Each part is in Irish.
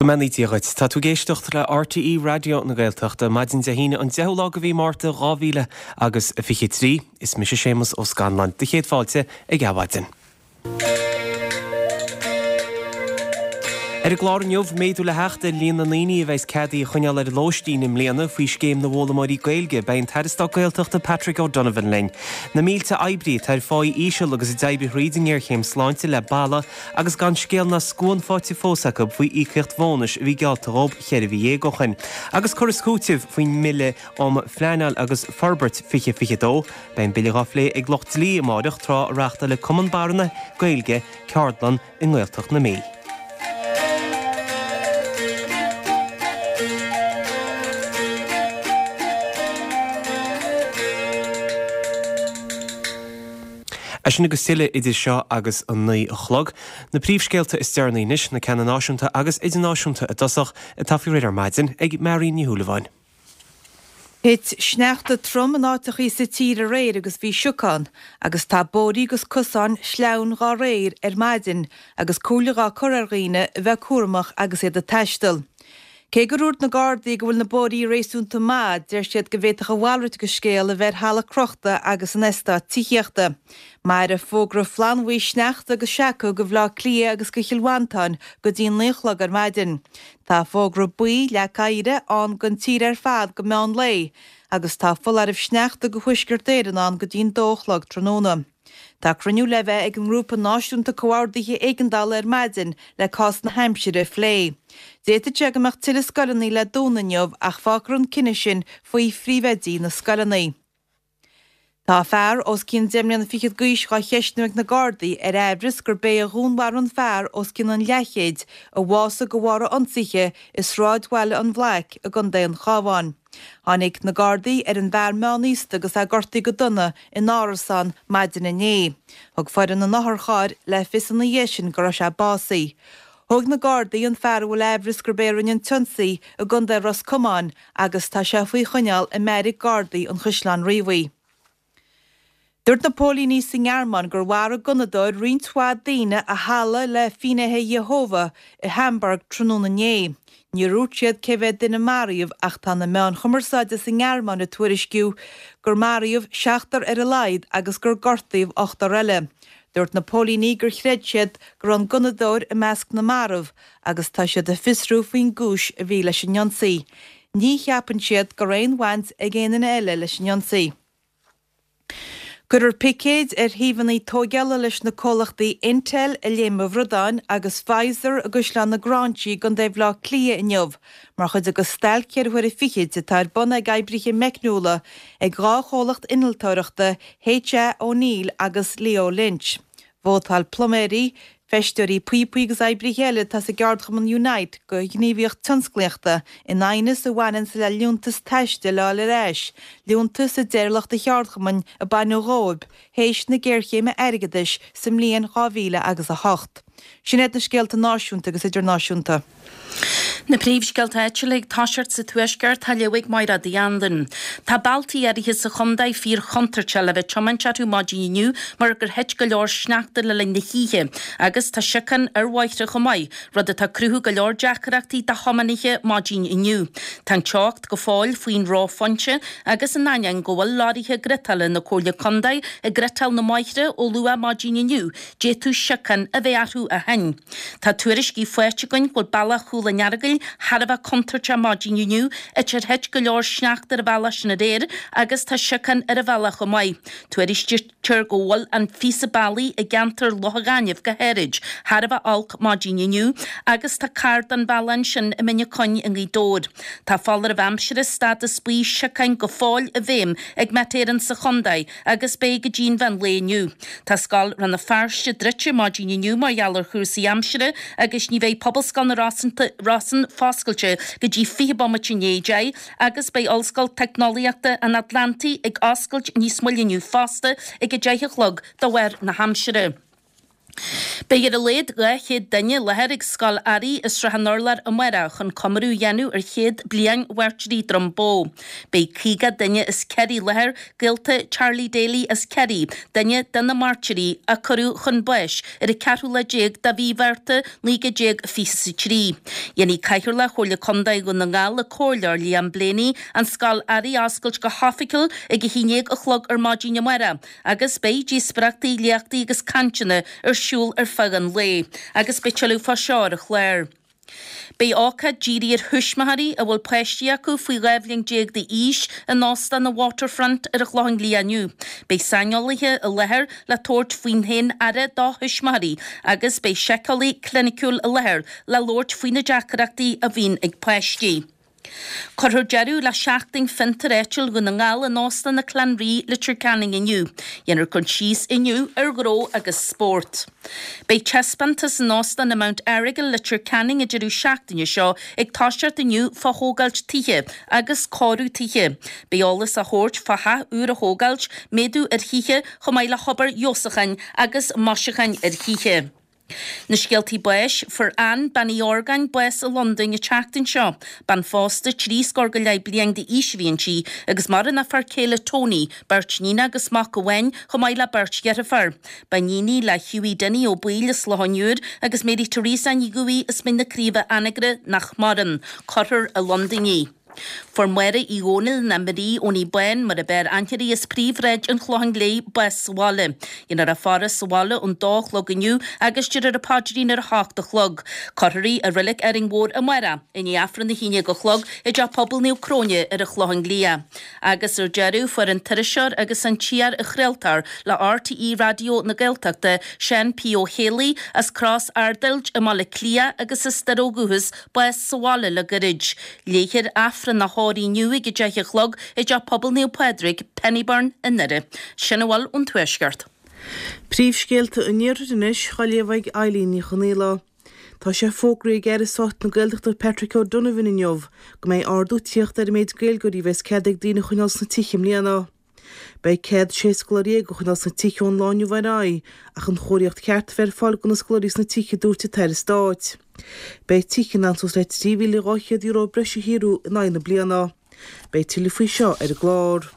Go mbeannaí Dia dhuit. Tá tú ag éisteacht le RTÉ Raidió na Gaeltachta, maidin Dé hAoine an 10ú lá de mhí Márta 2000 agus 23. Is mise Séamus Ó Scanláin. Do chéad fáilte ag Adhmhaidin. Ar an gclár inniu, méadú le theacht ar líon na ndaoine a bheas ceadaithe a choinneáil ar lóistín i mbliana faoi Scéim na bhFoghlaimeoirí Gaeilge. Beidh an tAire Stáit Gaeltachta Patrick O'Donovan linn. Na mílte oibrí atá ar pháí íseal agus a d'oibrigh thríd an ngéarchéim sláinte le balla agus gan scéal ná scuan faighte fós acu faoi íocaíocht bhónais a bhí geallta dhóibh cheithre mhí dhéag ó shin. Agus cur is cúiteamh faoin mBille um Phleanáil agus Forbairt 2022, beidh an bille dhá phlé ag lucht dlí amáireach tráth a reáchtálfaidh Cumann Barra na Gaeilge ceardlann i nGaeltacht na Mí. É sin agus tuilleadh idir seo agus an 9 a chlog. Na príomhscéalta is deireanaí anois, na ceanna náisiúnta agus idirnáisiúnta i dtosach, atá faoi réir ar maidin ag Marion Ní Shúilleabháin. Thit sneachta trom in áiteachaí sa tír aréir agus bhí siocán, agus tá bóithrí agus cosáin sleamhain dhá réir ar maidin agus comhairle dhá cur ar dhaoine a bheith cúramach agus iad ag taisteal. Cé gur dhúirt na Gardaí go bhfuil na bóithrí réasúnta maith, deir siad go bhféadfadh a mhalrait de scéal a bheith ar thalamh crochta agus in eastáit tithíochta. Mairfidh fógra flannbhuí sneachta agus seaca go Bhleá Cliath agus go Chill Mhantáin go dtí an 9 a chlog ar maidin. Tá fógra buí leac oighre ann don tír ar fad go meán lae agus tá foláireamh sneachta go Thuaisceart Éireann ann go dtí'n 2 a chlog tráthnóna. Tá cruinniú le bheith ag an nGrúpa Náisiúnta Comhordaithe Éigeandála ar maidin le cás na haimsire a phlé. D'fhéadfadh sé go mbeadh tuilleadh scoileanna le dúnadh inniu ach fágfar an cinneadh sin faoi phríomhoidí na scoileanna. Tá fear os cionn deich mbliana fichead d'aois dhá cheistniú ag na Gardaí ar aimhreas gurb é a dhúnmharaigh an fear os cionn an leathchéid a bhásaigh de bharr a ionsaithe i sráidbhaile an Bhlaic i gContae an Chabháin. Tháinig na Gardaí ar an bhfear meánaosta agus é gortaithe go dona in árasán maidin inné. Thug foireann an otharchairr le fios ina dhiaidh sin go raibh sé básaithe. Thóg na Gardaí an fear a bhfuil aimhreas gurb é a rinne an t-ionsaí i gContae Ros Comáin agus tá sé faoi choinneáil i mbeairic Gardaí an Chaisleáin Riabhaigh. Dúirt na póilíní sa nGearmáin gur mharaigh gunnadóir roinnt mhaith daoine i halla le Finnéithe Iehova i Hamburg tráthnóna inné. Níor dhúirt siad cé mhéad duine a maraíodh ach tá na meáin chumarsáide sa nGearmáin ag tuairisciú gur maraíodh seachtar ar a laghad agus gur gortaíodh ochtar eile. Dúirt na póilíní gur chreid siad go raibh an gunnadóir i measc na marbh agus tá siad ag fiosrú faoin gcúis a bhí leis an ionsaí. Ní cheapann siad go raibh aon bhaint ag aon duine eile leis an ionsaí. Cuirfear picéid ar shuíomhanna tóigeála leis na comhlachtaí Intel i Léim an Bhradáin agus Pfizer i gCaisleán na Gráinsí i gContae Bhaile Átha Cliath inniu mar chuid de stailc cheithre huaire fichid atá ar bun ag oibrithe meicniúla ag 2 chomhlacht innealtóireachta H.A. O'Neill agus Leo Lynch. Vótáil pluiméirí, feisteoirí píopaí agus oibrithe eile atá sa gceardchumann Unite do ghníomhaíocht tionsclaíochta in aighneas a bhaineanns le liúntas taistil a fháil ar ais, liúntas a deir lucht an cheardchumainn a baineadh dhóibh théis na géarchéime airgeadais sa mbliain 2000 agus 8. Sin iad na scéalta náisiúnta agus idirnáisiúnta. Na príomhscéalta áitiúla ag toiseacht sa Tuaisceart á léamh ag Mairéad Uí Anluain. Tá bealtaí áirithe sa chontae fíor chontúirteach le bheith ag tiomáint orthu maidin inniu mar gur thit go leor sneachta le linn na hoíche agus tá siocán ar bhóithre chomh maith, rud atá ag cruthú go leor deacrachtaí do thiománaithe maidin inniu. Tá an teocht go fóill faoin reophointe agus in ainneoin go bhfuil lorraithe ghriotála na Comhairle Contae ag griotáil na mbóithre ó luath maidin inniu, d'fhéadfadh siocán a bheith orthu ó shin. Tá tuairiscí faighte againn go bhfuil bealach Chúil an Earagail thar a bheith contúirteach maidin inniu, áit ar thit go leor sneachta ar an bhealach sin aréir agus tá siocán ar an bhealach chomh maith. Tuairiscítear go bhfuil an phíosa bealaigh i gceantar Loch an Ghainimh go háirid thar a bheith olc maidin inniu agus tá carr den bhealach ansin i mBinn Ó Coinn i nGaoth Dobhair. Tá foláireamh aimsire stádas buí siocáin go fóill i bhfeidhm ag Met Éireann sa chontae agus beidh go dtí an mheán lae inniu. Tá Scoil Rann na Feirste druidte maidin inniu mar gheall ar chúrsaí aimsire agus ní bheidh Pobalscoil na Rosann foscailte go dtí 20 bomaite i ndiaidh 10 agus beidh Ollscoil Teicneolaíochta an Atlantaigh ag oscailt níos moille inniu fosta ag 10 a chlog de bharr na haimsire. Beidh ar a laghad 200 duine i láthair ag Scoil Airí i Srath an Urláir amárach chun comóradh a dhéanamh ar chéad bliain Mhairtírí Dhroim Bó. Beidh 50 duine as Ciarraí i láthair, gaolta Charlie Daly as Ciarraí, duine de na mairtírí a cuireadh chun báis ar an ceathrú lá déag de mhí Mhárta 1923. Dhéanfaidh Cathaoirleach Chomhairle Contae Dhún na nGall, an Comhairleoir Liam Blaney, an Scoil Airí a oscailt go hoifigiúil ag 11 a chlog ar maidin amárach. Agus beidh díospóireachtaí, léachtaí agus cainteanna ar siúl ar feadh an lae, agus beidh tuilleadh fá seo ar an chlár. Beidh ócáid dírithe ar thuismitheoirí a bhfuil páistí acu faoi 12 bhliain d'aois in Óstán an Waterfront ar an Chlochán Liath inniu. Beidh saineolaithe i láthair le tabhairt faoin bhféin-aire do thuismitheoirí agus beidh síceolaí cliniciúil i láthair le labhairt faoi na deacrachtaí a bhíonn ag páistí. Cuirfear deireadh le Seachtain Fiontar Áitiúil Dhún na nGall in Óstán na Clanree, Leitir Ceanainn inniu. Dhéanfar cur síos inniu ar ghnó agus spórt. Beidh taispeántas in Óstán an Mount Errigal, Leitir Ceanainn an deireadh seachtaine seo ag toiseacht inniu fá thógáilt tithe agus cóiriú tithe. Beidh eolas á thabhairt fá theach úr a thógáilt, méadú ar thithe chomh maith le hobair fheabhsúcháin agus maisiúcháin ar thithe. Na scéaltaí báis, Fuair Ann, Bean Uí Orgáin, bás i Londain an tseachtain seo. Bean phósta, trí scór go leith bliain d'aois a bhí inti, agus maireann a fear céile Tony, beirt níon agus mac amháin, chomh maith le beirt dheirfiúr. Ba iníon í le Hughie Dinny Ó Baoill as Loch an Iúir agus Mary Teresa Ní Dhubhthaigh as Mín na Craoibhe Anagaire nach maireann. Cuirfear i Londain í. Fuair Máire Uí Dhónaill ná Marie Owenie Bán mar a b'fhearr aithne uirthi as Príomhshráid an Chlocháin Léith bás sa bhaile. Dhéanfar a faire sa bhaile ón dó a chlog inniu agus déarfar an paidrín ar a hocht a chlog. Cuirfear í i Reilig Árainn Mhór amárach i ndiaidh Aifreann a haon déag a chlog i dTeach Pobail Naomh Cróine ar an Chlochán Liath. Agus ar deireadh fuair an t-iriseoir agus an t-iar-chraoltóir le RTÉ Raidió na Gaeltachta, Seán P. Ó Héalaí, as Cros Arduild i mBaile Átha Cliath agus as Doire ó dhúchas, bás sa bhaile le goirid. Léifear Aifreann a thórraimh inniu ag 10 a chlog i dTeach Pobail Naomh Pádraig, Pennyburn i nDoire. Sin a bhfuil ón Tuaisceart. Príomhscéalta an Iarthair anois, á léamh ag Eileen Ní Chonghaile. Tá sé fógraithe ag Aire Stáit na Gaeltachta Patrick O'Donovan inniu go mbeidh ardú ag tíocht ar an méid Gaeilgeoirí a bheas cead ag daoine a choinneáil sna tithe i mbliana. Beidh cead 16 scoláirí a choinneáil sna tithe ón lá inniu ar aghaidh ach an chóiríocht cheart a bheith ar fáil do na scoláirí sna tithe, a dúirt an tAire Stáit. Beidh tithe in ann suas le €3,200 breise a shaothrú in aghaidh na bliana. Beidh tuilleadh faoi seo ar an gclár.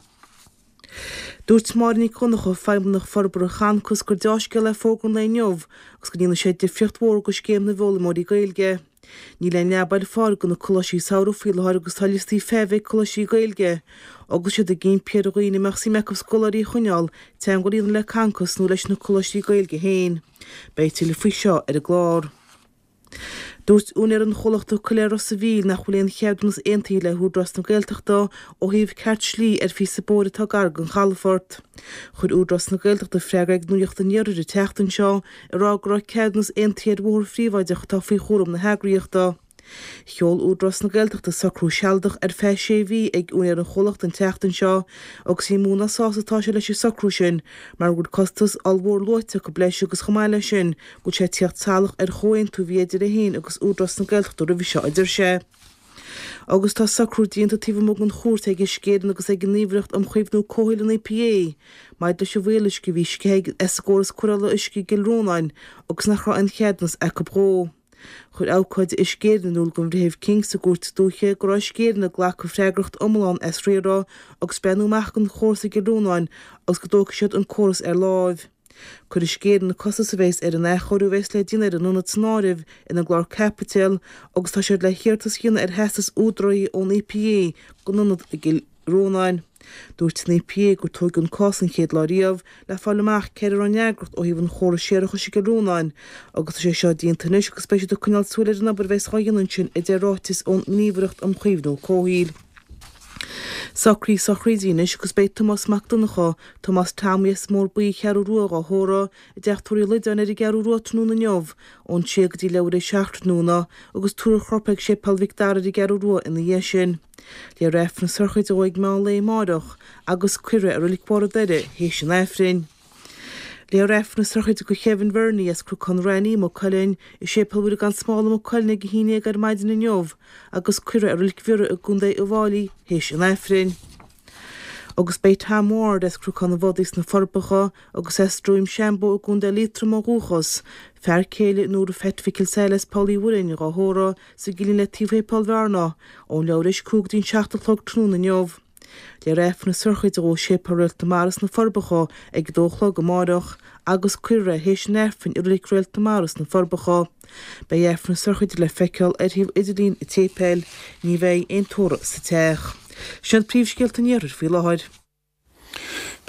Dúirt Máire Nic Dhonncha, Feidhmeannach Forbartha Chancas, gur deá-scéal é fógra an lae inniu agus go ndéanfaidh sé difríocht mhór do scéim na bhfoghlaimeoirí Gaeilge. Níl aon leaba ar fáil do na coláistí samhraidh faoi láthair agus tá liostaí feithimh ag coláistí Gaeilge agus iad ag impí ar dhaoine a mbeadh suim acu scoláirí a choinneáil teagmháil a dhéanamh le Concos nó leis na coláistí Gaeilge féin. Beidh tuilleadh faoi seo ar an gclár. Dúirt úinéir an chomhlachta Coiléar Ros a' Mhíl nach bhfuil aon cheadúnas aontaithe le hÚdarás na Gaeltachta ó thaobh ceart slí ar phíosa bóthair atá gar don chalafort. Chuir Údarás na Gaeltachta freagra ag Nuacht an Iarthair an tseachtain seo ag rá go raibh ceadúnas aontaithe ar bhóthar phríobháideach atá faoi chúram na heagraíochta. Sheol Údarás na Gaeltachta socrú sealadach ar feadh sé mhí ag úinéir an chomhlachta an tseachtain seo agus ní mó ná sásta atá sé leis an socrú sin mar go bhfuil costas ollmhór luaite acu leis agus chomh maith leis sin go bhfuil sé ag tíocht salach ar chomhaontú a bhí idir é féin agus Údarás na Gaeltachta roimhe seo, a deir sé. Agus tá socrú déanta taobh amuigh den chúirt ag Uisce Éireann agus ag an nGníomhaireacht um Chaomhnú Comhshaoil an EPA maidir leis an bhfuíolluisce a bhí sceithe as an gcóras cóireála uisce i gCill Rónáin agus nach raibh aon cheadúnas acu dhó. Chuir abhcóide Uisce Éireann in iúl don Bhreitheamh King sa gCúirt Dúiche go raibh Uisce Éireann ag glacadh freagracht iomlán as riaradh agus breathnú amach don chóras i gCill Rónáin agus go dtógfaidh siad an córas ar láimh. Cuirfidh Uisce Éireann na costais a bheas ar an athchóiriú a bheas le déanamh ar an ionad san áireamh ina gclár caipitil agus tá siad le hiarratas a dhéanamh ar theastas údaraithe ón EPA don ionad i gCill Rónáin. Dúirt an EPA gur tóigeadh an cás an chéad lá riamh le fáil amach cé air a raibh an fhreagracht ó thaobh an chórais séarachais i gCill Rónáin agus tá sé seo déanta anois agus beidh siad ag coinneáil súil ar an obair a bheas á dhéanamh ansin a deir ráiteas ón nGníomhaireacht um Chaomhnú Comhshaoil. Socruithe sochraide anois agus beidh Tomás Mac Donncha, Tomás Tommy as an mBóthar Buí an Cheathrú Rua dhá thórramh i dTeach Tórraimh Uí Loideáin ar an gCeathrú Rua tráthnóna inniu ón sé go dtí leathuair théis a 7 tráthnóna agus tabharfar a chorp ag Séipéal Mhic Dara ar an gCeathrú Rua ina dhiaidh sin. Léifear Aifreann na sochraide dhó ag meán lae amáireach agus cuirfear é i Reilig Bharr an Doire théis an Aifrinn. Léifear Aifreann na sochraide do Kevin Verney as Cnocán Raithní, Maigh Cuilinn, i Séipéal Mhuire gan Smál i Maigh Cuilinn ag 11 ar maidin inniu agus cuirfear é i Reilig Bhiorra i gContae Uíbh Fhailí théis an Aifrinn. Agus beidh Tom Ward as Cnocán an Bhodaigh sna Forbacha agus as Droim Seanbhó i gContae Liatroma ó dhúchas, fear céile Nóra Pheait Mhicil Saile as Poll Uí Mhuirinn, dhá thórramh sa gcillín le taobh Shéipéal Bhearna, ón leathuair théis 5 go dtí an 7 a chlog tráthnóna inniu. Léifear Aifreann na sochraide dhó i Séipéal Réalt na Mara sna Forbacha ag a dó a chlog amáireach agus cuirfear é théis an Aifrinn i Reilig Réalt na Mara sna Forbacha. Beidh Aifreann na sochraide le feiceáil ar shuíomh idirlín an tséipéil. Ní bheidh aon tórramh sa teach. Sin iad príomhscéalta an Iarthair faoi láthair.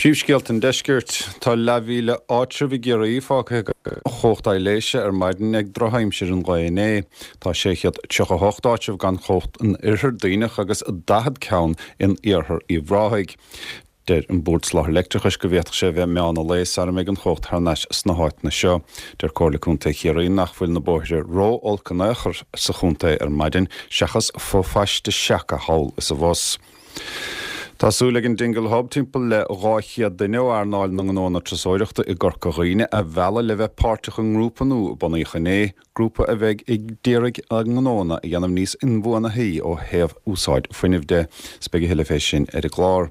Príomhscéalta an Deiscirt. Tá leathmhíle áitreabh i gCiarraí fágtha gan chumhacht aibhléise ar maidin ag drochaimsir an lae inné. Tá 638 áitreabh gan chumhacht in Oirthear Duibhneach agus 40 ceann in Iarthar Uíbh Ráthaigh. Deir an Bord Soláthair Leictreachais go bhféadfadh sé a bheith meán an lae sara mbeidh an chumhacht thar n-ais sna háiteanna seo. Deir Comhairle Contae Chiarraí nach bhfuil na bóithre ró-olc in aon chor sa chontae ar maidin seachas fo-phaiste seaca thall is abhus. Tá súil ag an Dingle Hub timpeall le 200 duine ó earnáil na ngnóanna turasóireachta i gCorca Dhuibhne a mhealladh le bheith páirteach i ngrúpa nua a bunaíodh inné, grúpa a bheidh ag d'iarraidh a ngnóanna a dhéanamh níos inbhuanaithí ó thaobh úsáid fuinnimh de. 'S beidh a thuilleadh fé sin ar an gclár.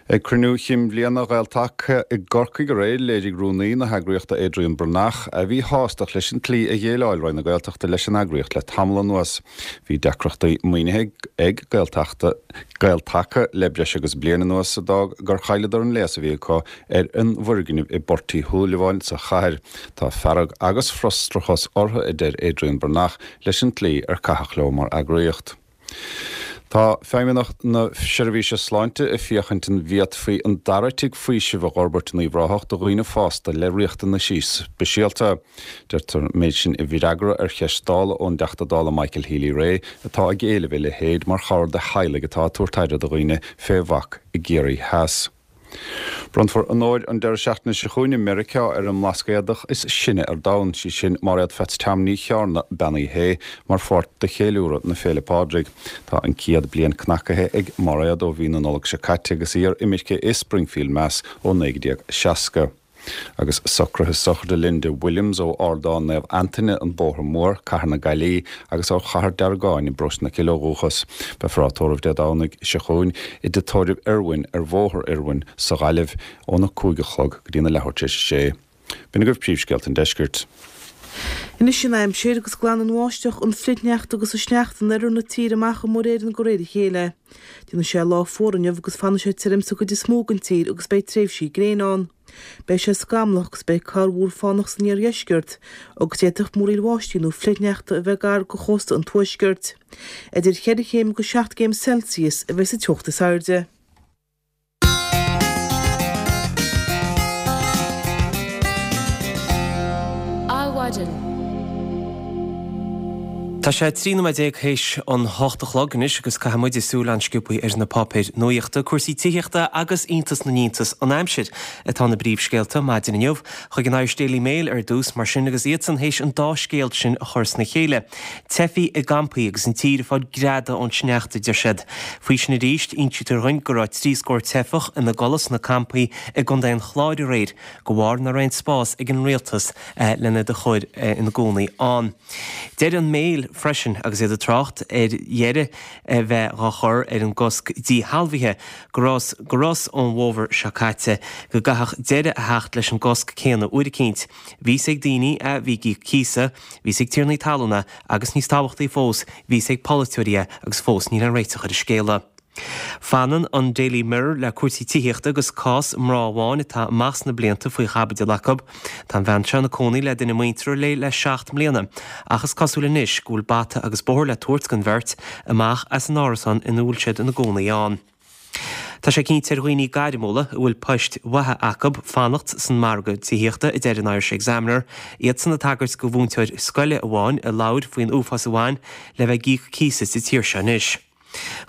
Ag cruinniú chinn bhliana Ghael-Taca i gCorcaigh aréir, léirigh rúnaí na heagraíochta Adrian Breathnach a mhíshástacht leis an tslí a dhéileáil Roinn na Gaeltachta leis an eagraíocht le tamall anuas. Bhí deacrachtaí maoinithe ag Gaeltachta, Gael-Taca le breis agus bliain anuas a d'fhág gur chailleadar an léas a bhí acu ar an bhfoirgneamh i bPort Uí Shúilleabháin sa chathair. Tá fearg agus frustrachas orthu, a deir Adrian Breathnach, leis an tslí ar caitheadh leo mar eagraíocht. Tá Feidhmeannacht na Seirbhíse Sláinte ag féachaint an bhféadfaí an dara tigh faoisimh a dh'fhorbairt in Uíbh Ráthach do dhaoine fásta le riachtanaisí speisialta. Deirtear an méid sin i bhfreagra ar cheist Dála ón dTeachta Dála Michael Healy-Rae atá ag éileamh a leithéid mar chabhair do theaghlaigh atá ag tabhairt aire do dhaoine fé bhac i gCiarraí Theas. Bronnfar onóir an deireadh seachtaine seo chugainn i Meiriceá ar an mBlascaodach is sine ar domhan, sí sin Máiréad Pheats Tom Ní Chearna, Bean Uí Shé, mar pháirt de cheiliúradh na Féile Pádraig. Tá an 100 bliain cnacaithe ag Máiréad ó mhí na Nollag seo caite agus í ar imirce i Springfield, Mass ó 1960. Agus socruithe sochraide Linda Williams ó Ardán Naomh Antaine, An Bóthar Mór, Cathair na Gaillimhe, agus ó Chathair Deargáin i bparóiste na Cille ó dhúchas. Beifear á tórramh Dé Domhnaigh seo chugainn i dTigh Tórraimh Irwin ar Bhóthar Irwin sa Ghaillimh óna 5 a chlog go dtína leathuair tar éis a sé. B'in agaibh príomhscéalta an deiscirt. Anois an aimsir, agus glanfaidh an bháisteach, an fhrithshneachta agus an sneachta in oirthear na tíre amach ó Mhuir Éireann de réir a chéile. Déanfaidh sé lá fuar inniu agus fanfaidh sé tirim sa gcuid is mó den tír agus beidh tréimhsí gréine ann. Beidh sé scamallach agus beidh corrmhúr fánach san iardheisceart agus d'fhéadfadh múraíl bháistí nó frithshneachta a bheith gar do chósta an tuaiscirt. Idir cheithre chéim agus seacht gcéim Celsius a bheidh sa teocht is airde. Adhmhaidin. Tá sé 13 nóiméad théis an hocht a chlog anois agus caithfidh muid súil an-sciobtha ar na páipéir nuachta, cúrsaí tithíochta agus iontas na n-iontas an aimsir atá ina bpríomhscéalta maidin inniu. Chuig an Irish Daily Mail ar dtús mar sin agus iadsan théis an dá scéal sin a chur sna chéile. Teifigh i gcampaí agus an tír ag fáil greadadh ón sneachta, a deir siad. Faoi sin arís, insítear dhuinn go raibh trí scór teifeach ina gcodladh sna campaí i gContae an Chláir aréir, de bharr nach raibh aon spás ag an rialtas lena iad a chur ina gcónaí ann. Deir an Mail freisin, agus iad ag trácht ar dheireadh a bheith dhá chur ar an gcosc díshealbhaithe, go rabhthas go rabhthas ón bhfómhar seo caite go gcaithfeadh deireadh a theacht leis an gcosc céanna uair eicínt. Bhí fhios ag daoine a bhí ag íoc cíosa, bhí fhios ag tiarnaí talún é agus níos tábhachtaí fós, bhí fhios ag polaiteoirí é agus fós níl aon réiteach ar an scéala. Fanann an Daily Mirror le cúrsaí tithíochta agus cás mná amháin atá amach sna blianta faoi chaibidil acu. Tá an bhean seo ina cónaí le duine muinteartha léi le seacht mbliana ach is cosúil anois go bhfuil bata agus bóthar le tabhairt don bheirt amach as an árasán ina bhfuil siad ina gcónaí ann. Tá sé cinnte ar dhaoine gairmiúla a bhfuil poist mhaithe acu fanacht san margadh tithíochta, a deir an Irish Examiner, iadsan ag tagairt do mhúinteoir scoile amháin a labhair faoin uafás a bhain le bheith ag íoc cíosa sa tír seo anois.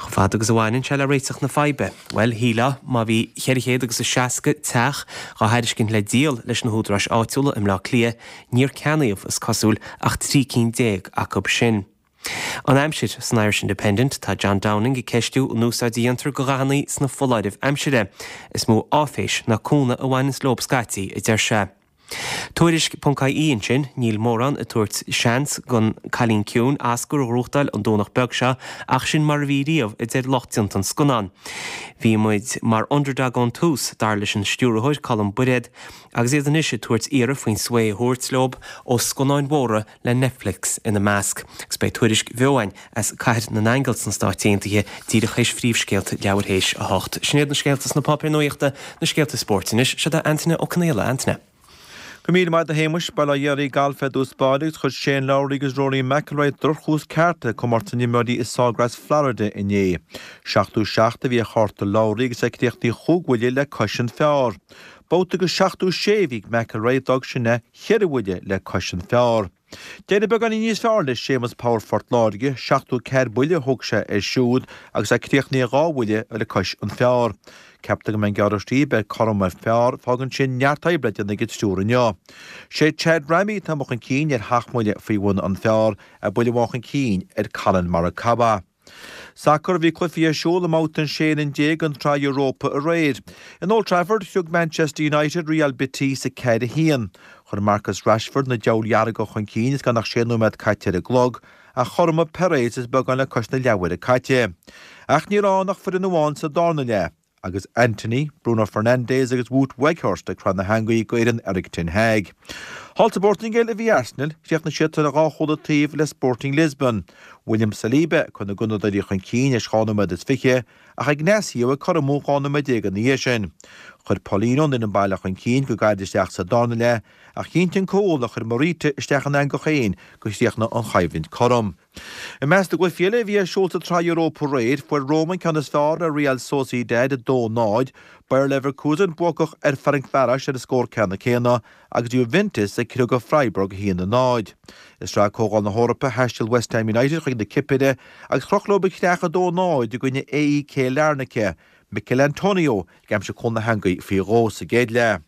Chomh fada agus a bhaineann sé le réiteach na faidhbe, bhuel, shílfeá má bhí 400 agus a 60 teach dhá thairiscint le díol leis na húdaráis áitiúla i mBleá Cliath, níor ceannaíodh, is cosúil, ach 13 cinn acu sin. An aimsir, San Irish Independent, tá John Downing ag ceistiú an úsáid a dhéantar de dhathanna sna foláirimh aimsire. Is mó áiféis ná cúnamh a bhaineanns leob scaití, a deir sé. Tuairisc ponc IE ansin, níl mórán ag tabhairt seans don Cailín Ciúin Oscar a ghnóthachtáil an Domhnach beag seo ach sin mar a bhí riamh, a deir lucht déanta an scannáin. Bhí muid mar underdog ón tús, dar leis an stiúrthóir Colm Bairéad, agus iad anois ag tabhairt iarraidh faoin svae a thabhairt leo ó scannáin mhóra le Netflix ina measc. Agus beidh tuairisc bheo againn as Cathair na nAingeal sna Stáit Aontaithe díreach théis phríomhscéalta leathuair théis 8. Sin iad na scéalta sna páipéir nuachta, na scéalta spóirt anois. Seo é Antaine Ó Conaola. Antaine. Go raibh míle maith agat a Shéamuis. Bail ó Dhia ar galf ar dtús báire agus chuir Shane Lowry agus Rory McIlroy droch-thús ceart le comórtas na n-imreoirí i Sawgrass, Florida inné. 77 a bhí ar chárta Lowry agus é críochnaithe chúig bhuille le cois an phar. Babhta go 76 a bhí ag McIlroy, d'fhág sin é cheithre bhuille le cois an phar. D'éirigh beagáinín níos fearr le Séamus Power Phort Láirge, 74 buille a thóg sé air siúd agus é críochnaithe dhá bhuille le cois an phar. Ceaptar go mbeidh an gearradh stíbe ar cothrom ar phar, fágann sin neart oibre le déanamh ag an triúr inniu. Sé Chad Ramey atá amuigh chun cinn ar sheacht mbuille faoi bhun an phar, é buille amháin chun cinn ar Collin Morikawa. Sacar, Bhí cluichí ar siúl i mbabhta an 16 fhoireann den tSraith Europa aréir. In Old Trafford, shrioc Manchester United Real Betis 4-1. Chuir Marcus Rashford na Diabhail Dhearga chun cinn is gan ach sé nóiméad caite ar an gclog, ach chothromaigh Perez is beagán le cois na leathuaire caite. Ach ní raibh ann ach foireann amháin sa darna leath. agus Antony, Bruno Fernandes agus Wout Weghorst ag cur na heangaí go fhoireann Erik ten Hag. Thall sa bPortaingéil a bhí Arsenal, chríochnaigh siad ar dhá chúl an taobh le Sporting Lisbon. William Saliba ag cur na Gunnadóirí chun cinn théis 12 nóiméad, ach Ignacio ag cothromú 12 nóiméad ina dhiaidh sin. Chuir Paulinho an fhoireann baile chun cinn go gairid isteach sa darna leath ach chinntigh an cúl a chuir Morita isteach an eangach féin gur chríochnaigh an choimhlint cothrom. I measc na gcluichí eile a bhí ar siúl sa tSraith Europa aréir, fuair Roma an ceann is fearr ar Real Sociedad 2-0, Bayer Leverkusen buacach ar Ferencvaros ar an scór ceanna céanna agus Juventus ag criogadh Freiburg 1-0. I Sraith Comhdháil na hEorpa, thaistil West Ham United chuig na Cipire agus chroch leo an chreach 2-0 i gcoinne AEK Larnaca, Michail Antonio ag aimsiú cúl na heangaí faoi dhó sa gcéad leath.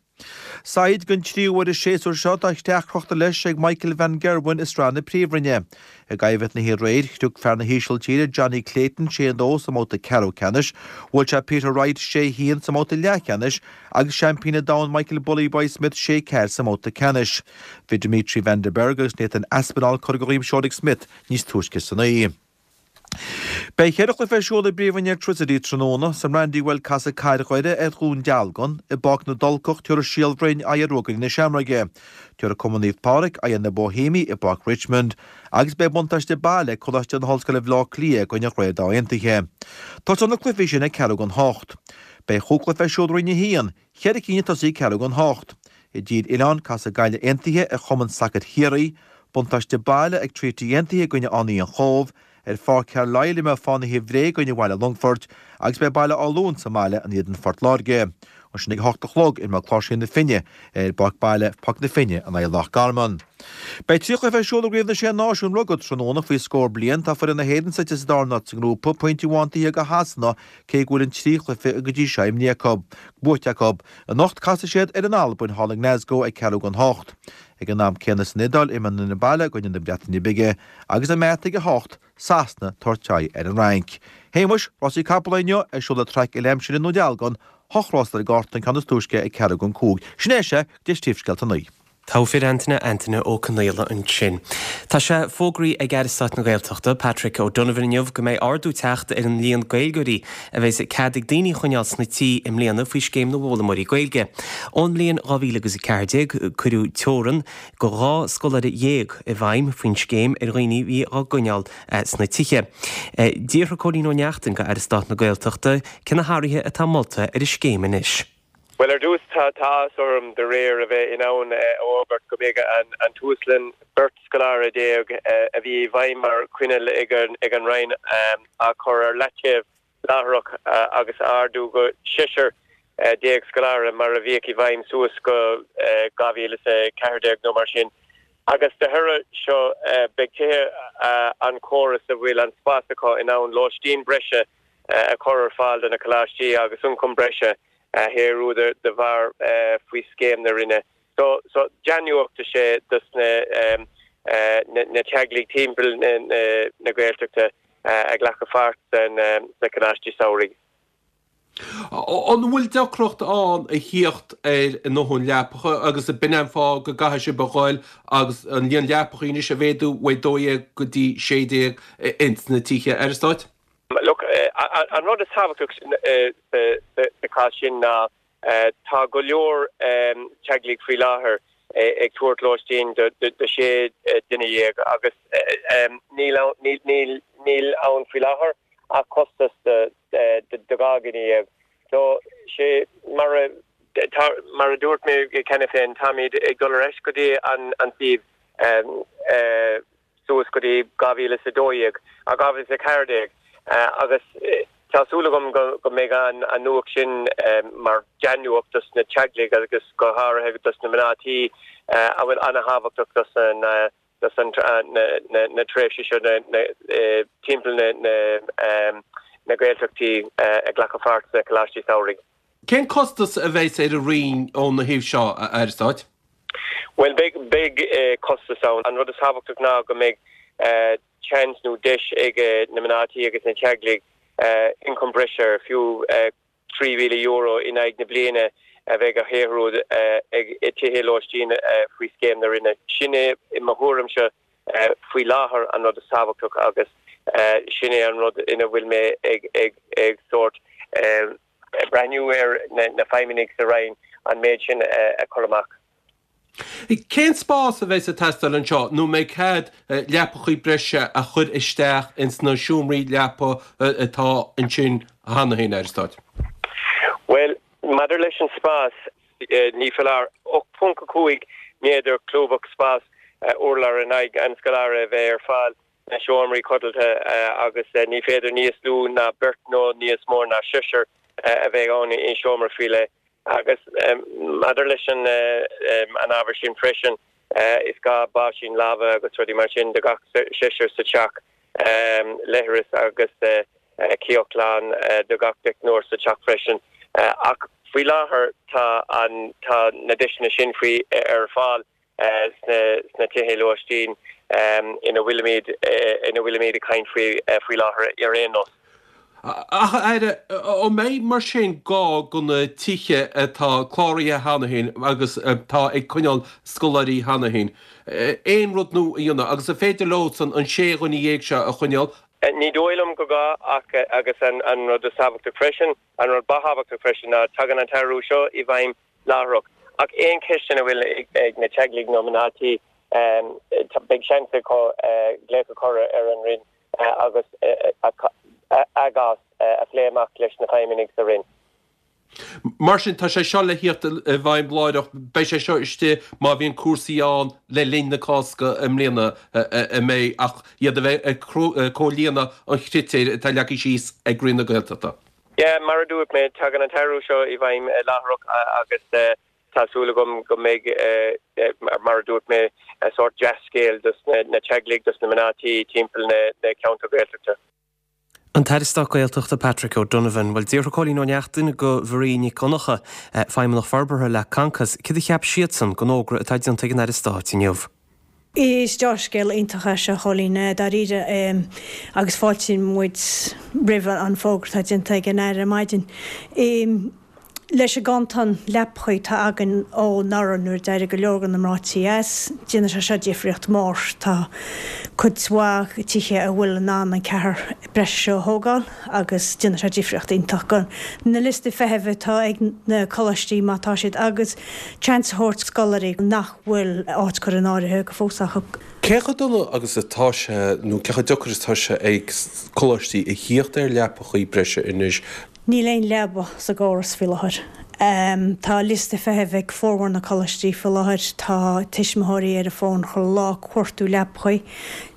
Said, Don tríú huair an séasúr seo tá creach crochta leis ag Michael van Gerwen i Sraith na Príomhroinne. I gcoimhlint na haréir, shrioc fear na hÍsiltíre Jonny Clayton 6-2 sa mbabhta ceathrú ceannais, bhuail sé Peter Wright 6-1 sa mbabhta leathcheannais agus seaimpín an domhain Michael Bully Boy Smith 6-4 sa mbabhta ceannais. Bhí Dimitri Van den Bergh agus Nathan Aspinall curtha de dhroim seoil ag Smith níos túisce san oíche. Beidh cheithre chluiche ar siúl i bPríomhroinn Airtricity tráthnóna. Sa mBrandywell casfaidh Cathair Dhoire ar Dhún Dealgan. I bPáirc na dTulcach tabharfaidh Síol Bhroin aghaidh ar Ruagairí na Seamróige. Tabharfaidh Cumann Naomh Pádraig aghaidh ar na Boihéamaigh i bPáirc Richmond. Agus beidh buntáiste baile ag Coláiste na hOllscoile Bhaile Átha Cliath i gcoinne Ghaoth Dobhair Aontaithe. Tosóidh na cluichí sin ag ceathrú don hocht. Beidh chúig chluiche ar siúl i Roinn 1, cheithre cinn ag tosaí ag ceathrú don hocht. I dTír Oileáin casfaidh Gaillimh Aontaithe ar Chumann Sacair Chiarraí. Buntáiste baile ag Treaty Aontaithe i gcoinne Fhánaithe an Chóibh, ar Pháirc Carlisle imreoidh Fánaithe Bhré i gcoinne Bhaile Longfoirt agus beidh Baile Átha Luain sa mbaile in éadan Phort Láirge. Ansin ag a hocht a chlog imreoidh Cláirsigh na Finne ar bpáirc baile Pháirc na Finne in aghaidh Loch Garman. Beidh 3 chluiche ar siúl i gCraobh na Sé Náisiún Rugbaí tráthnóna faoi scór bliain. Tá foireann na hÉireann suite sa darna háit sa ngrúpa, pointe amháin taobh thiar de Shasana cé go bhfuil an 3 chluiche go dtí seo imrithe acu, buaite acu. Anocht casfaidh siad ar an Albain thall i nGlasgow ag ceathrú don hocht. Ag an am céanna san Iodáil, imreoidh an fhoireann baile i gcoinne na Breataine Bige agus i mbeart ag 8, Sasana, tabhairt aghaidh ar an Fhrainc. Shéamuis, rásaí capall inniu ar siúl ag traic uile-aimsire i nDún Dealgan, hocht rás ar an gcárta, an ceann is túisce ag ceathrú don cúig. Sin é sea, go dtí Príomhscéalta a naoi. Togha fir Antaine, Antaine Ó Conaola ansin. Tá sé fógraithe ag Aire Stáit na Gaeltachta, Patrick O'Donovan inniu go mbeidh ardú teacht ar an líon Gaeilgeoirí a bheas cead ag daoine a choinneáil sna tithe i mbliana faoi Scéim na bhFoghlaimeoirí Gaeilge. Ón mbliain 2014 cuireadh teorann go 12 scoláire i bhfeidhm faoin scéim ar dhaoine a bhí á gcoinneáil sna tithe. D'fhiafraigh Cóilín Ó Neachtain de Aire Stáit na Gaeltachta cé na hathruithe atá molta ar an scéim anois. Bhuel, ar dtús, tá áthas orm de réir a bheith in ann a fhógairt go mbeidh an t-uaslíon beirt scoláire a bhí i bhfeidhm mar choinníoll ag an Roinn á chur ar leataobh láithreach agus á ardú go seisear scoláire mar a bhíodh i bhfeidhm suas go 2014 nó mar sin. Agus de thoradh seo beidh tithe an chórais a bhfuil an spás acu in ann lóistín breise a chur ar fáil do na coláistí agus ioncam breise a shaothrú de bharr faoi scéim na Roinne. So, so dea-nuacht is ea dos na teaghlaigh timpeall na Gaeltachta a ghlacfaidh páirt sna coláistí samhraidh. An bhfuil deacracht ann a thíocht ar a ndóthain leapacha agus b'in é an fáth go gcaithfidh sibh a ghoil agus an líon leapachaí anois a mhéadú ó 12 go dtí 16 ins na tithe Aire Stáit? Look, an rud is tábhachtach sa chás sin ná tá go leor teaghlaigh faoi láthair ag tabhairt lóistín do 16 duine agus níl ann faoi láthair ach costas do 12 dhuine. So, sé mar a mar a dúirt mé cheana féin, táimid ag dul ar ais go dtí an suíomh suas go dtí 2012, 2014 agus tá súil agam go mbeidh an nuacht sin mar dea-nuacht dos na teaghlaigh agus go háirithe dos na mná tí a bhfuil an-thábhachtach dos na dos na tréimhse seo timpeall na Gaeltachtaí ag glacadh pháirt sna Coláistí Samhraidh. Cén costas a bheas ar an Roinn óna thaobh seo, a Aire Stáit? Bhuel, beidh costas ann. An rud is tábhachtach ná go mbeidh seans nó deis ag na mná tí agus na teaghlaigh ioncam breise, fiú €3,000 in aghaidh na bliana, a bheidh á shaothrú ag tithe lóistín faoi scéim na Roinne. Sin é, i mo thuairimse, faoi láthair an rud is tábhachtach agus sin é an rud ina bhfuil mé ag sórt breathnú ar na feidhmeannaigh sa Roinn an méid sin a chur amach. Cén spás a bheas ag teastáil anseo nó an mbeidh cead leapachaí breise a chur isteach ins na seomraí leapa atá ansin cheana féin, Aire Stáit? Bhuel, maidir leis an spás, ní foláir 8.5 méadar cúbach spás urláir in aghaidh an scoláire a bheith ar fáil sna seomraí codlata agus ní féidir níos lú ná beirt nó níos mó ná seisear a bheith ann i seomra faoi leith. Agus maidir leis an ábhar sin freisin, is gá báisín láimhe agus rudaí mar sin do gach seisear sa teach, leithreas agus cíoch ghlan do gach deichniúr sa teach freisin. Ach faoi láthair tá an, tá na deiseanna sin faoi ar fáil. sna tithe lóistín ina bhfuilimid ina bhfuilimid ag caint faoi faoi láthair ar aon nós. Ach, a Aire, an mbeidh mar sin gá do na tithe atá cláraithe cheana féin agus atá ag coinneáil scoláirí cheana féin aon rud nua a dhéanamh agus an féidir leosan an 16 dhuine seo a choinneáil? Ní dóigh liom go gá ach agus an rud is tábhachtach freisin, an rud ba thábhachtach freisin ná tagann an t-athrú seo i bhfeidhm láithreach. Ach aon cheisteanna a bhfuil ag na teaghlaigh nó mná tí, beidh seans acu glaoch a chur ar an Roinn agus a gcás a phlé amach leis na feidhmeannaigh sa Roinn. Mar sin, tá sé seo le thíocht i bhfeidhm láithreach. Beidh sé seo istigh má bhíonn cúrsaí ann le linn na Cásca i mbliana, an mbeidh, ach iad a bheith ag comhlíonadh an chritéir atá leagtha síos ag Roinn na Gaeltachta. Yeah, mar a dúirt mé, tagann an t-athrú seo i bhfeidhm láithreach agus tá súil agam go mbeidh, mar a dúirt mé, sórt dea-scéal dos na teaghlaigh, dos na mná tí timpeall na ceantar Gaeltachta. An tAire Stáit Gaeltachta Patrick O'Donovan. Bhuel, d'fhiafraigh Cóilín Ó Neachtain de Mharie Nic Dhonncha, Feidhmeannach Forbartha le Concos, céard a cheap siadsan den fhógra atá déanta ag an Aire Stáit inniu. Is dea-scéal iontach é seo, a Chóilín, dáiríre, agus fáiltíonn muid roimh an fógra atá déanta ag an Aire ar maidin. Leis an gcantán leapachaí atá againn ó anuraidh nuair a d'éirigh go leor de na mná tí as, déanfaidh sé seo difríocht mhór. Tá cuid mhaith tithe a bhfuil in ann an ceathrar breise seo a thógáil agus déanfaidh sé difríocht iontach do na liostaí feithimh atá ag na coláistí má tá siad agus seans a thabhairt scoláirí nach bhfuil áit curtha in áirithe go fós acu. Cé chomh dona agus atá sé, nó cé chomh deacair is atá sé ag coláistí a thíocht ar leapachaí breise anois? Níl aon leaba sa gcóras faoi láthair. Tá liosta feithimh ag formhór na coláistí faoi láthair. Tá tuismitheoirí ar an bhfón chuile lá ag cuartú leapachaí.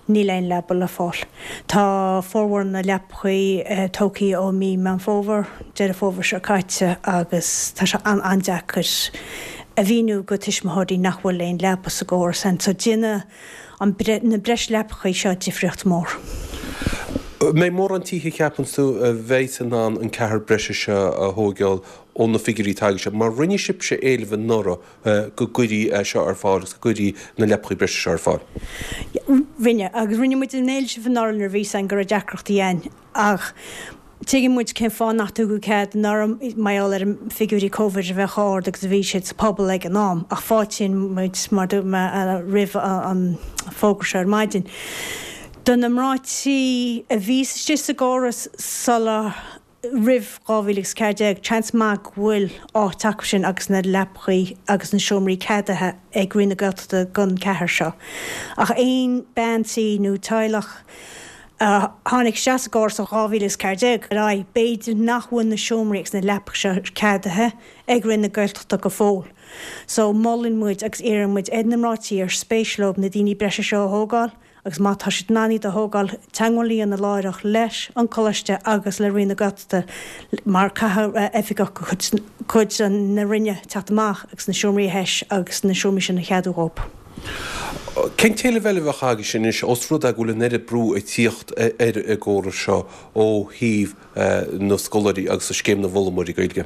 Níl aon leaba le fáil. Tá formhór na leapachaí tógtha ó mí Meán Fómhair, Deireadh Fómhair seo caite agus tá sé an-an-deacair a mhíniú go tuismitheoirí nach bhfuil aon leaba sa gcóras ann. So déanfaidh an na breis leapachaí seo difríocht mór. An mbeidh mórán tithe cheapann tú a bheidh in ann an ceathrar breise seo a thóigeáil ó na figiúirí atá agaibhse? Mar rinne sibhse éileamh anuraidh go gcuirí é seo ar fáil agus go gcuirí na leapachaí breise seo ar fáil. Rinne, agus rinne muid an éileamh anuraidh nuair a bhí a fhios againn go raibh deacrachtaí ann ach. Tuigeann muid cén fáth nach dtugadh cead anuraidh, mar gheall ar an figiúirí Covid a bheith chomh ard agus a bhí siad sa pobal ag an am, ach fáiltíonn muid, mar dúirt mé, roimh an fógra seo ar maidin. Do na mná tí a bhí istigh sa gcóras sula, roimh 2014, seans maith go bhfuil áit acu sin agus na leapachaí agus na seomraí ceadaithe ag Roinn na Gaeltachta don cheathrar seo. Ach aon bean tí nó teaghlach a tháinig isteach sa gcóras ó 2014 ar aghaidh, b'fhéidir nach bhfuil na seomraí agus na leapacha seo ceadaithe ag Roinn na Gaeltachta go fóill. So, molann muid agus iarrann muid ar na mná tí ar spéis leo na daoine breise seo a thógáil agus má tá siad in ann iad a thógáil, teagmháil a dhéanamh láithreach leis an Coláiste agus le Roinn na Gaeltachta mar caithfidh oifigeach de chuid na Roinne teacht amach agus na seomraí a thomhas agus na seomraí sin a cheadú dhóibh. Cén t-éileamh eile a bheadh agaibhse anois, ós rud é go bhfuil an oiread brú ag tíocht ar an gcóras seo ó thaobh na scoláirí agus Scéim na bhFoghlaimeoirí Gaeilge?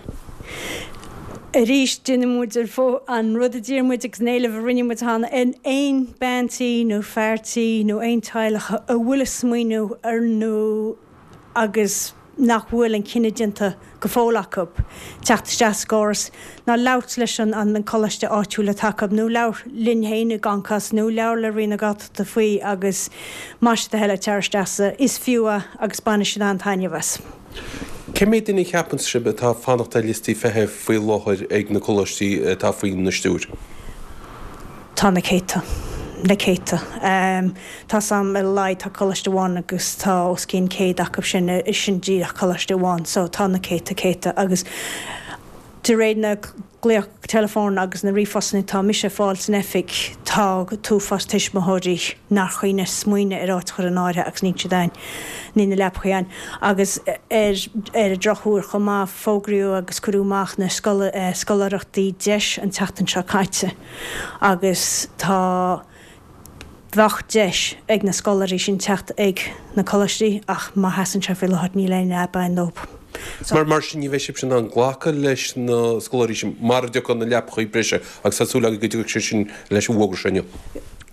Arís, déanann muid an rud a d'iarr muid agus an éileamh a rinne muid cheana, ar aon bean tí nó fear tí nó aon teaghlach a bhfuil ag smaoineamh ar nó agus nach bhfuil an cinneadh déanta go fóill acu teacht isteach sa gcóras, ná labhairt leis an coláiste áitiúil atá acu, nó labhair linn féin i gConcos, nó labhair le Roinn na Gaeltachta faoi agus más é do thoil é tar isteach sa, is fiú é agus bainfidh siad an-taitneamh as. Cé mhéad duine a cheapann sibh atá ag fanacht ar liostaí feithimh faoi láthair ag na coláistí atá faoina stiúir? Tá na céadta. Na céadta. Tá's a'm ar a laghad tá coláiste amháin agus tá os cionn 100 acu sin, sin díreach coláiste amháin. So tá na céadta, céadta agus de réir na glaoch teileafóin agus na ríomhphostanna atá mise ag fáil san oifig tá t-uafás tuismitheoirí nár chuimhnigh smaoineamh ar áit a chur in áirithe agus níl siad ann, níl na leapachaí ann. Agus ar ar an drochuair chomh maith fógraíodh agus cuireadh amach na scoláireachtaí deis an tseachtain seo caite agus tá Bheadh deis ag na scoláirí sin teacht ag na coláistí ach mar a sheasann sé faoi láthair níl aon leaba ann dóibh. Mar mar sin ní bheidh sibhse in ann glacadh leis na scoláirí sin mara dtiocfaidh na leapachaí breise agus tá súil agaibh go dtiocfaidh sé sin leis an bhfógra seo inniu.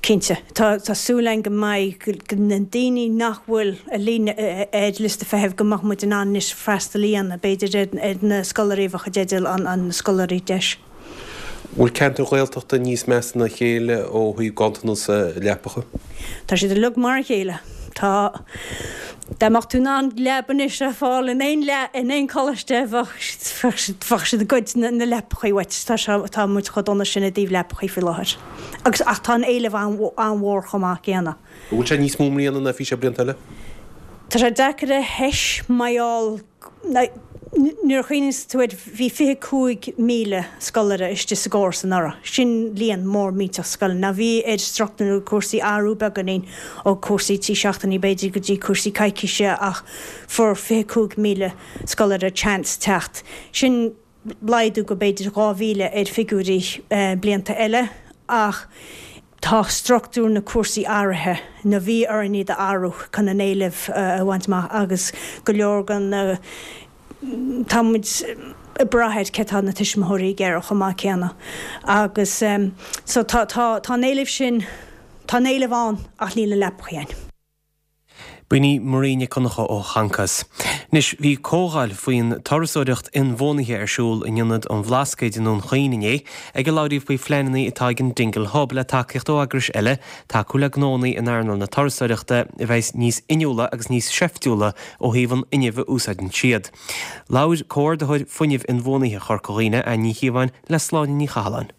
Cinnte. Tá tá súil againn go mbeidh na daoine nach bhfuil ar líne ar liosta feithimh go mbeadh muid in ann anois freastal a dhéanamh b'fhéidir ar ar na scoláirí a bheadh i dteideal an an scoláirí deis. Bhfuil ceantair Ghaeltachta níos measa ná a chéile ó thaobh ganntanas leapacha? Tá siad uilig mar a chéile. Tá. Dá mbeadh tú in ann leaba anois a fháil in aon in aon choláiste bheadh bheadh siad ag goid na leapachaí uait. Tá sé tá muid chomh dona sin i dtaobh leapachaí faoi láthair. Agus ach tá an éileamh an-mhór chomh maith céanna. An bhfuil sé níos mó i mbliana ná a bhí sé blianta eile? Tá sé deacair a thomhas mar gheall Nuair a chuimhníos tú air, bhí 25,000 scoláire istigh sa gcóras anuraidh. Sin líon mór millteach scoileanna. Now bhí ar struchtúr na cúrsaí athrú beagáinín ó cúrsaí 3 seachtainí b'fhéidir go dtí cúrsaí coicíse ach fuair 25,000 scoláire chance teacht. Sin laghdú go b'fhéidir 2,000 ar figiúirí blianta eile ach tá struchtúr na cúrsaí athraithe nó bhí orainn iad a athrú chun an éileamh a bhaint amach agus go leor den tá muid ag brath ar cé tá na tuismitheoirí ag iarraidh chomh maith céanna agus so tá tá tá an éileamh sin tá an éileamh ann ach níl na leapachaí ann. B'in í Marie Nic Dhonncha ó Choncos. Anois, bhí comhdháil faoin turasóireacht inbhuanaithe ar siúl in Ionad an Bhlascaoid i nDún Chaoin inné, ag a labhraíodh faoi phleananna atá ag an Dingle Hub le tacaíocht ó eagrais eile tacú le gnónna in earnáil na turasóireachta a bheas níos inniúla agus níos seiftiúla ó thaobh an fhuinnimh a úsáideann siad. Labhair Comhordaitheoir Fuinnimh Inbhuanaithe Chorca Dhuibhne, Anne Ní Chíobháin, le Sláine Ní Chathalláin.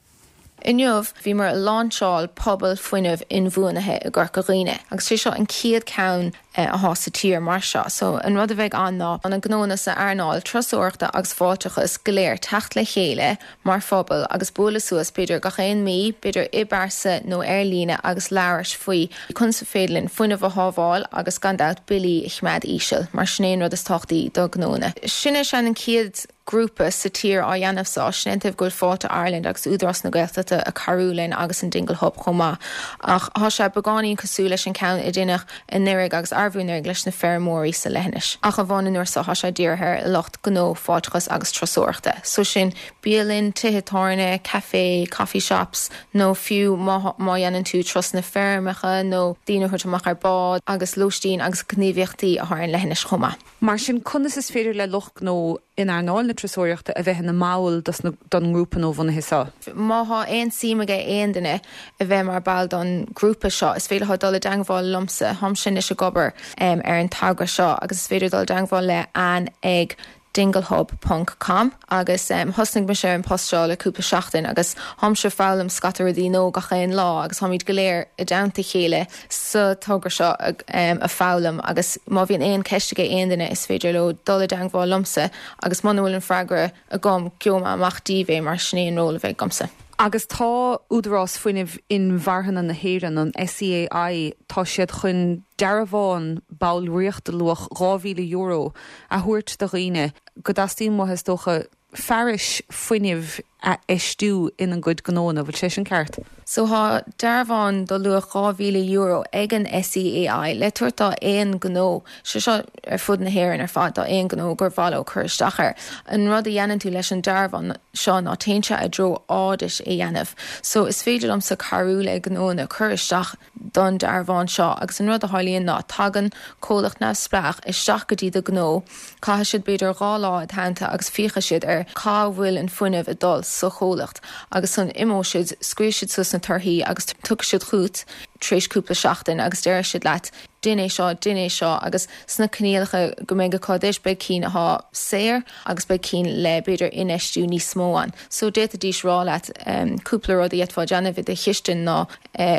Inniu, bhíomar ag láinseáil Pobal Fuinnimh Inbhuanaithe i gCorca Dhuibhne agus sé seo an chéad ceann athá sa tír mar seo. So, an rud a bheidh ann ná na gnónna sa earnáil turasóireachta agus fáilteachas go léir teacht le chéile mar phobal agus bualadh suas b'fhéidir gach aon mí, b'fhéidir i bpearsa nó ar líne agus labhairt faoi conas is féidir linn fuinneamh a shábháil agus gan dabht billí a choimeád íseal mar sin é an rud is tábhachtaí do gnónna. Sin é sin an chéad. grúpa sa tír á dhéanamh so, sin é an taobh go bhfuil Fáilte Ireland agus Údarás na Gaeltachta ag cabhrú linn agus an Dingle Hub chomh maith. Ach thá sé beagáinín cosúil leis an ceann a deineadh anuraidh agus arbhú anuraidh leis na feirmeoirí sa leithinis. Ach amháin an uair so thá sé dírithe ar lucht gnó, fáilteachas agus turasóireachta. So sin bialann, tithe tábhairne, café, coffee shops nó fiú má má dhéanann tú turasanna feirmeacha nó daoine a thabhairt amach ar bád agus lóistín agus gníomhaíochtaí athá ar an leithinis chomh maith. Mar sin, conas is féidir le lucht gnó in earnáil na turasóireachta a bheith ina mball don ngrúpa nuabhunaithe seo? Má thá aon suim aige aon duine a bheith mar ball don grúpa seo, is féidir leo dul i dteangmháil liomsa, tháimse anois ag obair ar an togra seo agus is féidir dul i dteangmháil le Anne ag dinglehub ponc com agus thosnaigh mise ar an post seo le cúpla seachtain agus tháimse ag foghlaim scata rudaí nua gach aon lá agus tháimid go léir i dteannta a chéile sa togra seo ag foghlaim agus má bhíonn aon ceist aige aon duine is féidir leo dul i dteangmháil liomsa agus muna bhfuil an freagra agam gheobhaidh mé amach díobh é mar sin é an ról a bheidh agamsa. Agus tá Údarás Fuinnimh Inmharthana na hÉireann, an SEAI, tá siad chun dearbhán ballraíochta luach €2,000 a thabhairt do dhaoine go dteastaíonn uathu, is dócha, fearais fuinnimh a fheistiú ina gcuid gnóanna. Bhfuil sé sin ceart? So thá dearbhán do luach €2,000 ag an SEAI le tabhairt do aon gnó, sé seo ar fud na hÉireann ar fad, do aon gnó gur mhaith leo cur isteach air. An rud a dhéanann tú leis an dearbhán seo ná téann sé i dtreo audit a dhéanamh. So is féidir liomsa cabhrú le gnóanna cur isteach don dearbhán seo agus an rud a tharlaíonn ná tagann comhlacht neamhspleách isteach go dtí do ghnó, caithfidh siad b'fhéidir 2 lá id theannta agus féachfaidh siad ar cá bhfuil an fuinneamh ag dul sa chomhlacht agus ansan imeoidh siad, scríobhfaidh siad suas na torthaí agus tiocfaidh siad chugat tar éis cúpla seachtain agus déarfaidh siad leat dein é seo, dein é seo agus sna coinníollacha go mbeidh acu duit beidh cinn athá saor agus beidh cinn le b'fhéidir infheistiú níos mó ann. So d'fhéadfaidís rá leat cúpla rud a d'fhéadfá déanamh i do chistin ná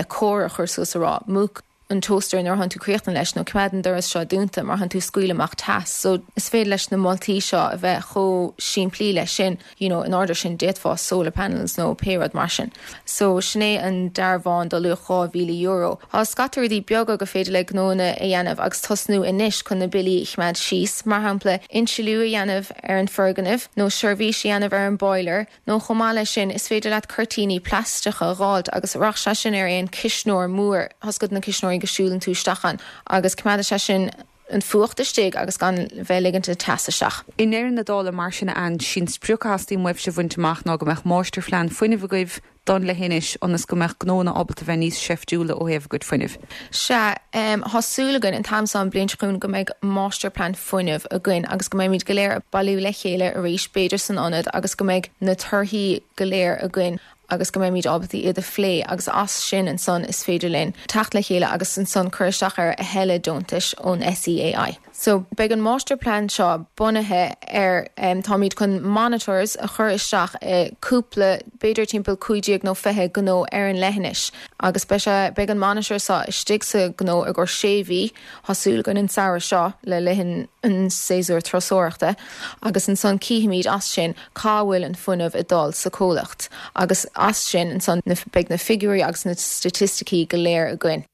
comhartha a chur suas a rá, múch an toaster nuair atánn tú críochnaithe leis nó coimeád an doras seo dúnta mar thánn tú ag scaoileadh amach teas. So is féidir leis na moltaí seo a bheith chomh simplí leis sin, you know, in ord sin d'fhéadfá solar panels nó pé rud mar sin. So sin é an dearbhán do luach €2,000. Tá scata rudaí beaga go féidir le gnóanna a dhéanamh agus tosnú anois chun na billí a choimeád síos, mar shampla insliú a dhéanamh ar an foirgneamh nó seirbhís a dhéanamh ar an boiler, Nó chomh maith leis sin, is féidir leat cuirtíní plaisteacha a dh'fháilt agus rachaidh sé sin ar aon cuisneoir mór, tá a fhios agat na cuisneoirí go siúlann tú isteach ann agus coimeádfaidh sé sin an fuacht istigh agus gan bheith ag ligint an teas isteach. I ndeireadh na dála, mar sin, a Anne, sí'n sprioc a theastaíonn uaibhse a bhaint amach ná go mbeadh máistirphlean fuinnimh agaibh, don leithinis ionas go mbeadh gnóanna ábalta bheith níos seiftiúla ó thaobh a gcuid fuinnimh. Sea, tá súil againn an t-am seo an bhliain seo chugainn go mbeidh máistirphlean fuinnimh againn agus go mbeimid go léir ag bailiú le chéile arís, b'fhéidir san ionad, agus go mbeidh na torthaí go léir againn agus go mbeimid ábalta iad a phlé agus as sin ansan is féidir linn teacht le chéile agus ansan cur isteach ar a thuilleadh deontais ón SEAI. So, beidh an máistirphlean seo bunaithe ar, táimid chun monitors a chur isteach i cúpla, b'fhéidir timpeall 15 nó 20 gnó ar an leithinis agus beidh sé, beidh an monitor seo istigh sa ghnó i gcomhair sé mhí, tá súil againn an samhradh seo le linn an séasúr turasóireachta agus ansan cífimid as sin cá bhfuil an fuinneamh ag dul sa chomhlacht agus as sin ansan beidh na figiúirí agus na staitisticí go léir againn.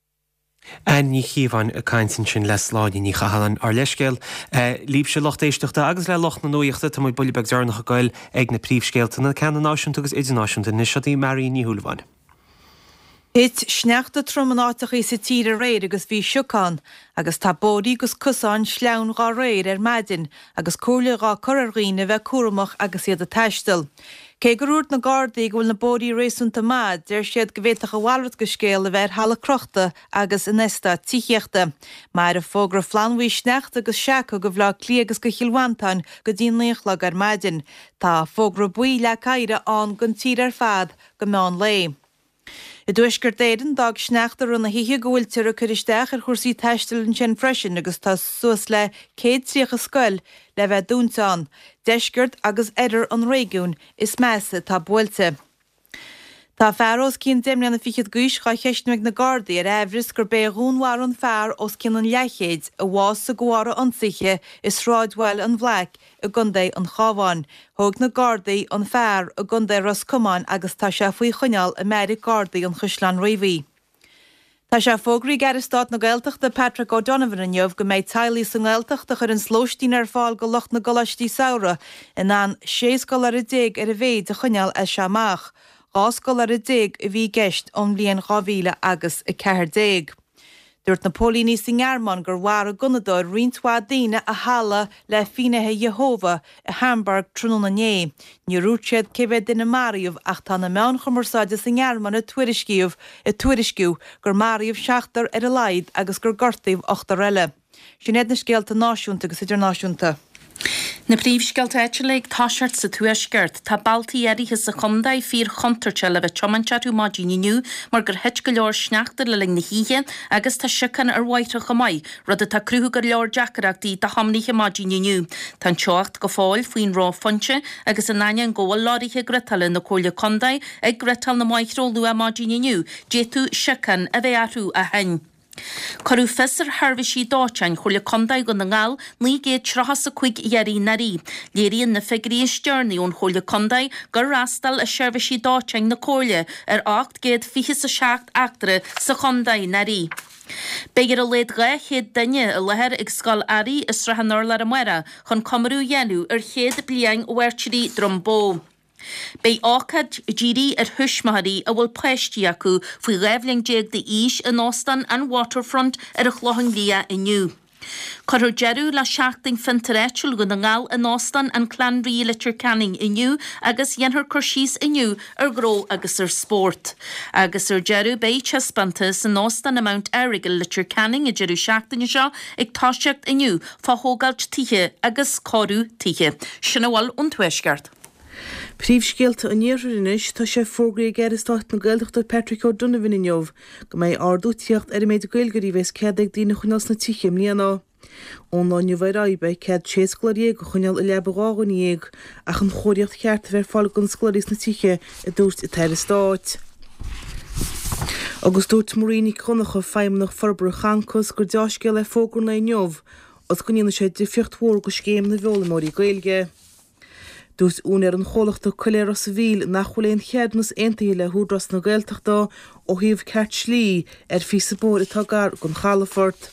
Anne Ní Chíobháin ag caint ansin le Sláine Ní Chathalláin. Ár leithscéal libhse lucht éisteachta agus le lucht na nuachta, tá muid buille beag deireanach ag goil ag na príomhscéalta, na ceanna náisiúnta agus idirnáisiúnta. Anois seo í Marion Ní Shúilleabháin. Thit sneachta trom in áiteachaí sa tír aréir agus bhí sioc ann, agus tá bóithrí agus cosáin sleamhain dhá réir ar maidin agus comhairle dhá cur ar dhaoine a bheith cúramach agus iad ag taisteal. Cé gur dhúirt na Gardaí go bhfuil na bóithrí réasúnta maith, deir siad go bhféadfadh a mhalairt de scéal a bheith ar thalamh crochta agus in eastáit tithíochta. Mairfidh fógra flannbhuí sneachta agus seaca go Bhaile Átha Cliath agus go Chill Mhantáin go dtí an 9 a chlog ar maidin. Tá fógra buí leac oighre ann don tír ar fad go meán lae. I dTuaisceart Éireann, d'fhág sneachta i rith na hoíche go bhfuiltear ag cur isteach ar chúrsaí taistil ansin freisin agus tá suas le 130 scoil le bheith dúnta ann. Deisceart agus oirthear an réigiúin is measa atá buailte. Tá fear os cionn deich mbliana fichead d'aois dhá cheistniú ag na Gardaí ar aimhreas gurb é a dhúnmharaigh an fear os cionn an leathchéid a bhásaigh de bharr a ionsaithe i sráidbhaile an Bhlaic i gContae an Chabháin. Thóg na Gardaí an fear i gContae Ros Comáin agus tá sé faoi choinneáil i mbeairic Gardaí an Chaisleáin Riabhaigh. Tá sé fógraithe ag Aire Stáit na Gaeltachta Patrick O'Donovan inniu go mbeidh teaghlaigh sa nGaeltacht a chuireanns lóistín ar fáil go lucht na gcoláistí samhraidh in ann 16 scoláire ar a mhéid a choinneáil as seo amach, 12 scoláire a bhí i gceist ón mbliain 2000 agus 14. Dúirt na póilíní sa nGearmáin gur mharaigh gunnadóir roinnt mhaith daoine i halla le Finnéithe Iehova i Hamburg tráthnóna inné. Níor dhúirt siad cé mhéad duine a maraíodh ach tá na meáin chumarsáide sa nGearmáin ag tuairisciú ag tuairisciú gur maraíodh seachtar ar a laghad agus gur gortaíodh ochtar eile. Sin iad na scéalta náisiúnta agus idirnáisiúnta. Na príomhscéalta áitiúla ag toiseacht sa Tuaisceart. Tá bealtaí áirithe sa chontae fíor-chontúirteach le bheith ag tiomáint orthu maidin inniu mar gur thit go leor sneachta le linn na hoíche agus tá siocán ar bhóithre chomh maith, rud atá ag cruthú go leor deacaireachtaí do thiománaithe maidin inniu. Tá an teocht go fóill faoin reophointe agus in ainneoin go bhfuil leoraithe ghriotála na Comhairle Contae ag griotáil na mbóithre ó luath maidin inniu, d'fhéadfadh siocán a bheith orthu ó shin. Cuireadh fios ar sheirbhísí dóiteáin Chomhairle Contae Dhún na nGall 935 iarraidh anuraidh. Léiríonn na figiúirí is deireanaí ón Chomhairle Contae gur fhreastail a seirbhísí dóiteáin na Comhairle ar 827 eachtra sa chontae anuraidh. Beidh ar a laghad 200 duine i láthair ag Scoil Airí i Srath an Urláir amárach chun comóradh a dhéanamh ar chéad bliain Mhairtírí Droim Bó. Beidh ócáid dírithe ar thuismitheoirí a bhfuil páistí acu faoi 12 bhliain d'aois in Óstán an Waterfront ar an Chlochán Liath inniu. Cuirfear deireadh le Seachtain Fiontar Áitiúil Dhún na nGall in Óstán an Clanree i Leitir Ceanainn inniu agus dhéanfar cur síos inniu ar ghnó agus ar spórt. Agus ar deireadh beidh taispeántas in Óstán an Mount Errigal i Leitir Ceanainn an deireadh seachtaine seo ag toiseacht inniu fá thógáilt tithe agus cóiriú tithe. Sin a bhfuil ón Tuaisceart. Príomhscéalta an Iarthair anois, tá sé fógraithe ag Aire Stáit na Gaeltachta Patrick O'Donovan inniu go mbeidh ardú ag tíocht ar an méid Gaeilgeoirí a bheas cead ag daoine a choinneáil sna tithe i mbliana. Ón lá inniu ar aghaidh beidh cead 16 scoláire a choinneáil i leaba 12 dhuine ach an chóiríocht cheart a bheith ar fáil do na scoláirí sna tithe, a dúirt an tAire Stáit. Agus dúirt Marie Nic Dhonncha, Feidhmeannach Forbartha Concos, gur deá-scéal é fógra an lae inniu agus go ndéanfaidh sé difríocht mhór do scéim na bhfoghlaimeoirí Gaeilge. Dúirt úinéir an chomhlachta Coiléar Ros a' Mhíl nach bhfuil aon cheadúnas aontaithe le hÚdarás na Gaeltachta ó thaobh ceart slí ar phíosa bóthair atá gar don chalafort.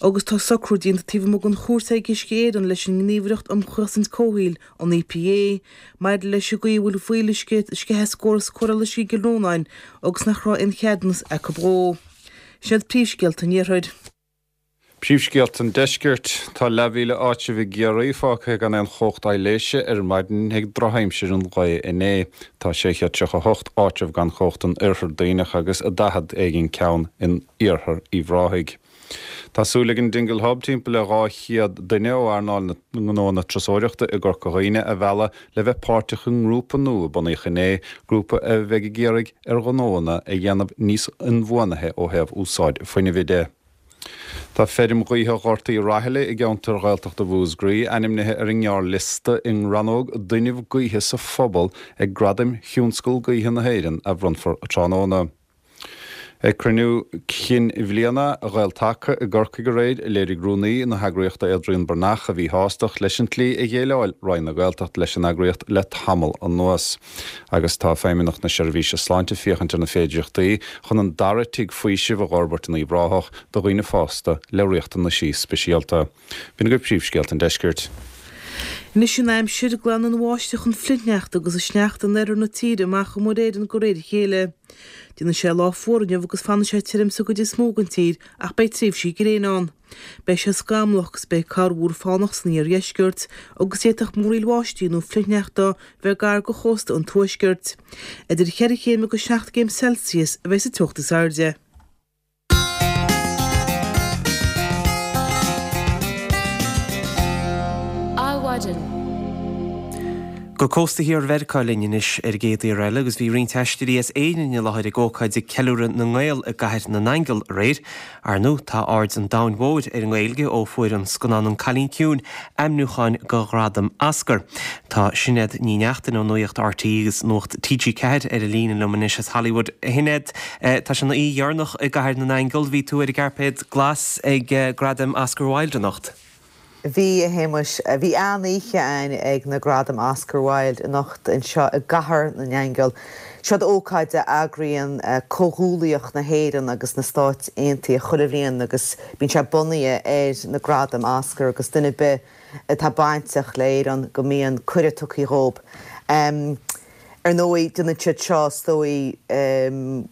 Agus tá socrú déanta taobh amuigh den chúirt ag Uisce Éireann leis an nGníomhaireacht um Chosaint Comhshaoil, an EPA, maidir leis an gcaoi a bhfuil fuíolluisce ag sceitheadh as córas cóireála uisce i gCill Rónáin agus nach raibh aon cheadúnas acu dhó. Sin iad príomhscéalta an Iarthair. Príomhscéalta an Deiscirt. Tá leathmhíle áitreabh i gCiarraí fágtha gan aon chumhacht aibhléise ar maidin ag drochaimsir an lae inné. Tá 638 áitreabh gan chumhacht in Oirthear Duibhneach agus 40 éigin ceann in Iarthar Uíbh Ráthaigh. Tá súil ag an Dingle Hub timpeall le 200 duine ó earnáil na ngnóanna turasóireachta i gCorca Dhuibhne a mhealladh le bheith páirteach i ngrúpa nua a bunaíodh inné, grúpa a bheidh ag iarraidh ar ghnóanna a dhéanamh níos inbhuanaithe ó thaobh úsáid fuinnimh de. Tá feirm ghaoithe Ghort Uí Raghallaigh i gceantar Ghaeltachta Mhúscraí ainmnithe ar an ngearrliosta i rannóg d'Fhuinneamh Gaoithe sa Phobal ag Gradaim Thionscal Gaoithe na hÉireann a bhronnfar tráthnóna. Ag cruinniú cinn bhliana Ghael-Taca i gCorcaigh aréir, léirigh rúnaí na heagraíochta Adrian Breathnach a mhíshástacht leis an tslí a dhéileáil Roinn na Gaeltachta leis an eagraíocht le tamall anuas. Agus tá Feidhmeannacht na Seirbhíse Sláinte ag féachaint ar na féidireachtaí chun an dara tigh faoisimh a dh'fhorbairt in Uíbh Ráthach do dhaoine fásta le riachtanaisí speisialta. B'in agaibh príomhscéalta an deiscirt. Anois an aimsir, glanfaidh an bháisteach an flichshneachta agus an sneachta in oirthear na tíre amach ó Mhuir Éireann de réir a chéile. Déanfaidh sé lá fuar inniu agus fanfaidh sé tirim sa gcuid is mó den tír ach beidh tréimhsí gréine ann. Beidh sé scamallach agus beidh corrmhúr fánach san iardheisceart agus d'fhéadfadh múraíl bháistí nó flichshneachta bheith gar do chósta an tuaiscirt. Idir cheithre chéim agus seacht gcéim Celsius a bheidh sa teocht is airde. Adhmhaidin. Go cósta thiar Mheiriceá linn anois ar an gcéad iarraidh eile agus bhí roinnt aisteoirí as Éirinn i láthair ag ócáid ag ceiliúradh na nGael i gCathair na nAingeal aréir. Ar ndóigh, tá aird an domhain mhóir ar an nGaeilge ó fuair an scannán An Cailín Ciúin ainmniúchán do ghradam Oscar. Tá Sinéad Ní Neachtain ó Nuacht RTÉ agus Nuacht TG4 ar an líne liom anois as Hollywood. A Shinéad, tá sé ina oíche dheireanach i gCathair na nAingeal. Bhí tú ar an gcairpéad glas ag Gradaim Oscar Wilde anocht. Bhí, a Shéamais. Bhí an-oíche againn ag na Gradaim Oscar Wilde anocht anseo i gCathair na nAingeal. Seod ócáid a eagraíonn Comhghuallaíocht na hÉireann agus na Stáit Aontaithe chuile bhliain agus bíonn sé bunaithe ar na Gradaim Oscar agus duine ar bith atá bainteach le hÉirinn go mbíonn cuireadh tugtha dhób. Ar ndóigh, déanann siad seo, is dóigh,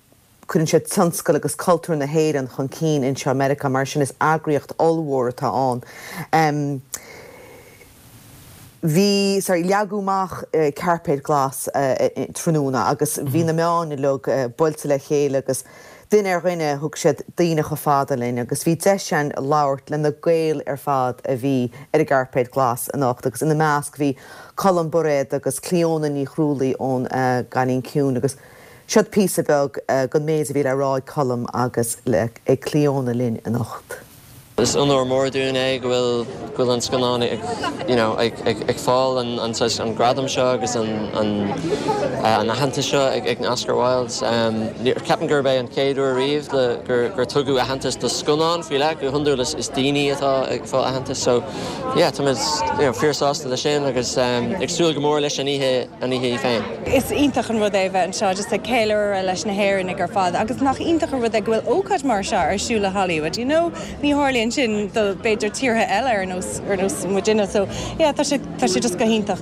Cuireann siad tionscal agus cultúr na hÉireann chun cinn anseo i Meiriceá, mar sin is eagraíocht ollmhór atá ann. Bhí, sorry, leagadh amach cairpéad glas tráthnóna agus bhí na meáin uilig buailte le chéile agus duine ar dhuine thug siad daoine chomh fada linn agus bhí deis againn labhairt le na Gaeil ar fad a bhí ar an gcairpéad glas anocht agus ina measc bhí Colm Bairéad agus Clíona Ní Chrualaoi ón gCailín Ciúin agus Seod píosa beag den méid a bhí le rá ag Colm agus ag Clíona linn anocht. Is onóir mór dúinn é go bhfuil go bhfuil an scannán ag you know ag ag ag fáil an an saghas an gradam seo agus an an an aitheantas seo ag ag na Oscar Wildes. Ceapaim gurb é an chéad uair riamh le gur gur tugadh aitheantas do scannán faoi leith, go hiondúil is is daoine atá ag fáil aitheantas so yeah táimid you know fíor sásta leis sin agus ag súil go mór leis an oíche an oíche í féin. Is iontach an rud é a bheith anseo just ag ceiliúradh leis na hÉireannaigh ar fad agus nach iontach an rud é go bhfuil ócáid mar seo ar siúl i Hollywood, you know? Ní tharlaíonn sin do b'fhéidir tíortha eile ar nós, ar nós muidinne so yeah tá sé, tá sé just go hiontach.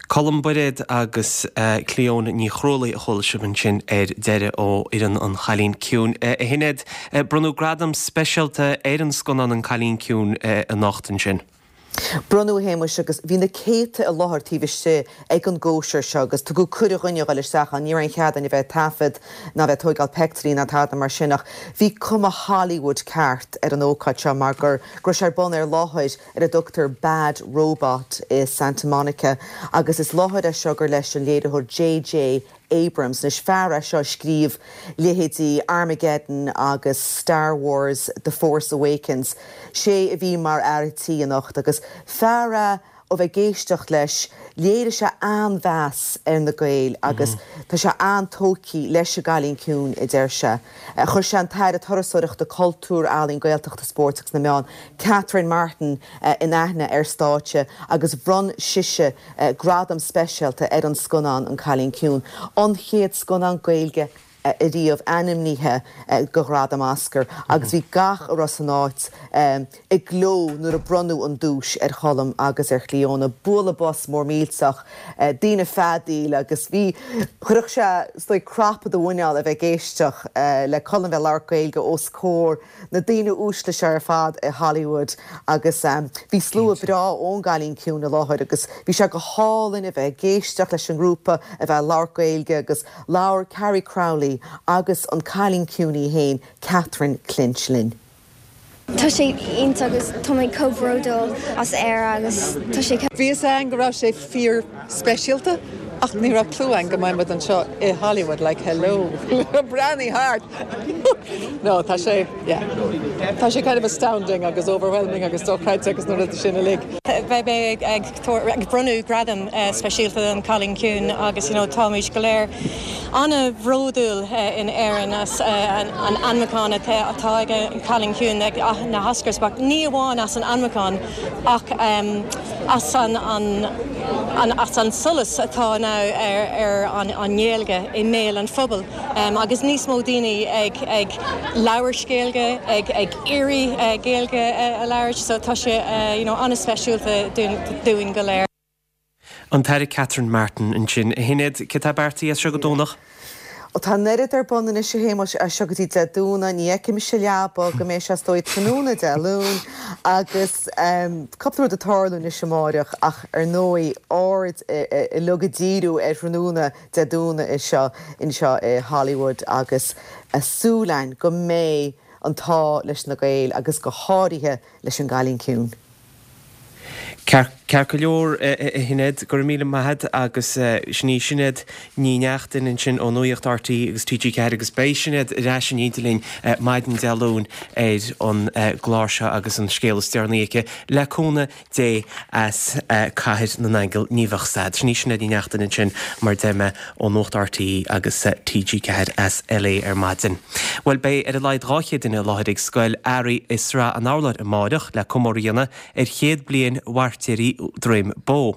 Colm Bairéad agus Clíona Ní Chrualaoi a chuala sibh ansin ar deireadh ó fhoireann An Chailín Ciúin. A Shinéad, bronnadh gradam speisialta ar an scannán An Cailín Ciúin anocht ansin. Bronnadh, a Shéamuis, agus bhí na céadta i láthair taobh istigh ag an gcóisir seo agus tugadh cuireadh dhúinne a dhul isteach ann. Ní raibh aon chead againn a bheith ag taifead ná a bheith ag tóigeáil peictiúirí ná tada mar sin ach bhí cuma Hollywood ceart ar an ócáid seo mar gur go raibh sé ar bun ar láthair ar a dtugtar Bad Robot i Santa Monica agus is láthair é seo gur leis an léiritheoir JJ Abrams. Anois, fear é seo a scríobh leithéidí Armageddon agus Star Wars, The Force Awakens. Sé a bhí mar fhear tí anocht agus fear é ó bheith ag éisteacht leis, léirigh sé an-mheas ar na Gaeil agus tá sé an-tógtha leis an gCailín Ciúin, a deir sé. Chuir sé an tAire Turasóireachta, Cultúir, Ealaíon, Gaeltachta, Spóirt agus na Meán, Catherine Martin, in aithne ar stáitse agus bhronn sise gradam speisialta ar an scannán An Cailín Ciúin, an chéad scannán Gaeilge ariamh ainmnithe do ghradam Oscar agus bhí gach a raibh san áit ag gleo nuair a bronnadh an duais ar Cholm agus ar Chlíona. Bualadh bos mór millteach, daoine ag feadaíl agus bhí, chuirfeadh sé is dóigh crap i do mhuineál a bheith ag éisteach le Colm bheith ag labhairt Gaeilge os comhair na daoine uaisle seo ar fad i Hollywood agus bhí slua breá ón gCailín Ciúin i láthair agus bhí sé go hálainn a bheith ag éisteacht leis an ngrúpa a bheith ag labhairt Gaeilge agus labhair Carrie Crowley agus an Cailín Ciúin í féin, Catherine Clinch linn. Tá sé iontach agus tá mé chomh bródúil as Éire agus tá sé. Bhí fhios againn go raibh sé fíor speisialta ach ní raibh clue againn go mbeidh muid anseo i Hollywood like hello breathnaigh thart no tá sé yeah tá sé kind of astounding agus overwhelming agus dochreidte agus na rudaí sin uilig. Beidh mé ag ag bronnadh gradam speisialta don Cailín Ciúin agus you know táimid go léir an-bhródúil in Éirinn as an ainmniúchán atá ag an Cailín Ciúin ag na hOscars ach ní amháin as an ainmniúchán ach as an as an solas atá now ar an nGaeilge i mbéal an phobail agus níos mó daoine ag ag labhairt Gaeilge, ag ag iarraidh Gaeilge a labhairt so tá sé you know an-speisialta dúinn go léir. An tAire Catherine Martin ansin. A Shinéad, céard atá beartaithe as seo go Domhnach? Ó tá an oiread ar bun anois a Shéamuis, as seo go dtí Dé Domhnaigh, ní fheicfidh mise leaba go mbeidh sé is dóigh tráthnóna Dé Luain agus cúpla rud ag tarlú anois amáireach ach ar ndóigh aird uilig ag díriú ar thráthnóna Dé Domhnaigh anseo anseo i Hollywood agus súil againn go mbeidh an t-ádh leis na Gaeil agus go háirithe leis an gCailín Ciúin. Ceart. Ceart go leor, a Shinéad, go raibh míle maith agat agus sin í Sinéad Ní Neachtain ansin ó Nuacht RTÉ agus TG4 agus beidh Sinéad ar ais in éindí linn maidin Dé Luain ar an gclár seo agus an scéal is deireanaí aici, le cúnamh Dé as Cathair na nAingeal ní bheadh stad. Sin í Sinéad Ní Neachtain ansin mar a deir mé ó Nuacht RTÉ agus TG4 as LA ar maidin. Bhuel beidh ar a laghad 200 duine i láthair ag Scoil Earraigh i Srath an Urláir amáireach le comóradh a dhéanamh ar chéad bliain Mhairtéirí Dhroim Bó.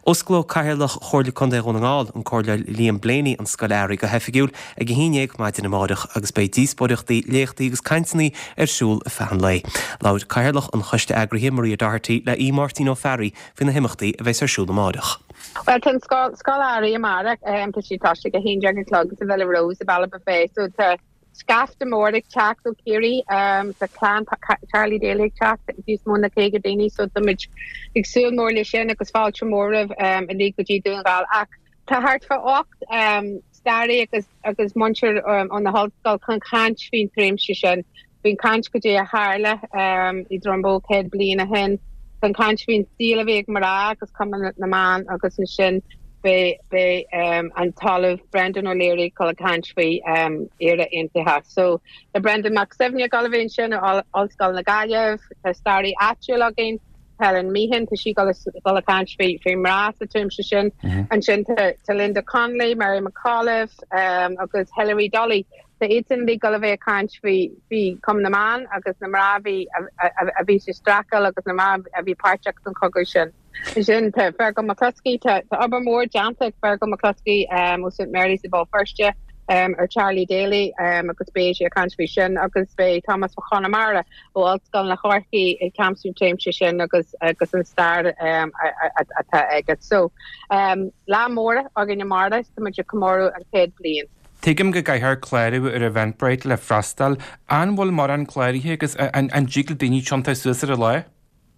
Osclóidh Cathaoirleach Chomhairle Contae Dhún na nGall, an Comhairleoir Liam Blaney an Scoil Earraigh go hoifigiúil ag 11 maidin amárach agus beidh díospóireachtaí, léachtaí agus cainteanna ar siúl ar feadh an lae. Labhair Cathaoirleach an Choiste Eagraithe, Maria Doherty, le Aodh Máirtín Ó Fearraigh faoi na himeachtaí a bheas ar siúl amárach. Bhuel, tá an Scoil Earraigh amárach, tá sí ag toiseacht ag 11 a chlog sa Villa Rose i Ballybofey so tá scaifte mór ag teacht ó Chiarraí, tá clann Charlie Daly ag teacht, níos mó ná 50 daoine so táimid ag súil mór le sin agus fáilte mór roimh uilig go dtí Dún na nGall ach tá thart fá 8 staraí agus agus múinteoir ó na hollscoil chun caint faoin tréimhse sin, faoin caint goidé a tharla i Droim Bó 100 bliain ó shin, chun caint faoin saol a bhí ag mná agus Cumann na mBan agus ansin beidh beidh an tOllamh Brendan O'Leary ag dul ag caint faoi Éire Aontaithe. So tá Brendan Mac Suibhne ag dul a bheith ansin ó Ollscoil na Gaillimh, tá staraí áitiúil againn, Helen Meehan, tá sí ag dul ag caint faoi faoi mná sa tréimhse sin. Ansin tá tá Linda Connolly, Mary McAuliffe agus Hilary Dolly. Tá iadsan uilig ag dul a bheith ag caint faoi faoi Cumann na mBan agus na mná a bhí a bhí sa streachailt agus na mná a bhí páirteach san chogadh sin. Ansin tá Fergal McCluskey, tá tá obair mhór déanta ag Fergal McCluskey ó St Mary's i Béal Feirste ar Charlie Daly agus beidh sé ag caint faoi sin agus beidh Tomás Mac Conmara ó Ollscoil na Chorcaí ag caint faoin tréimhse sin agus agus an stair atá aige. So lá mór againn amárach, tá muid ag comóradh an chéad bliain. Tuigim go gcaithfear clárú ar Eventbrite le freastal. An bhfuil mórán cláraithe agus an dtig le daoine tiontú suas ar an lá?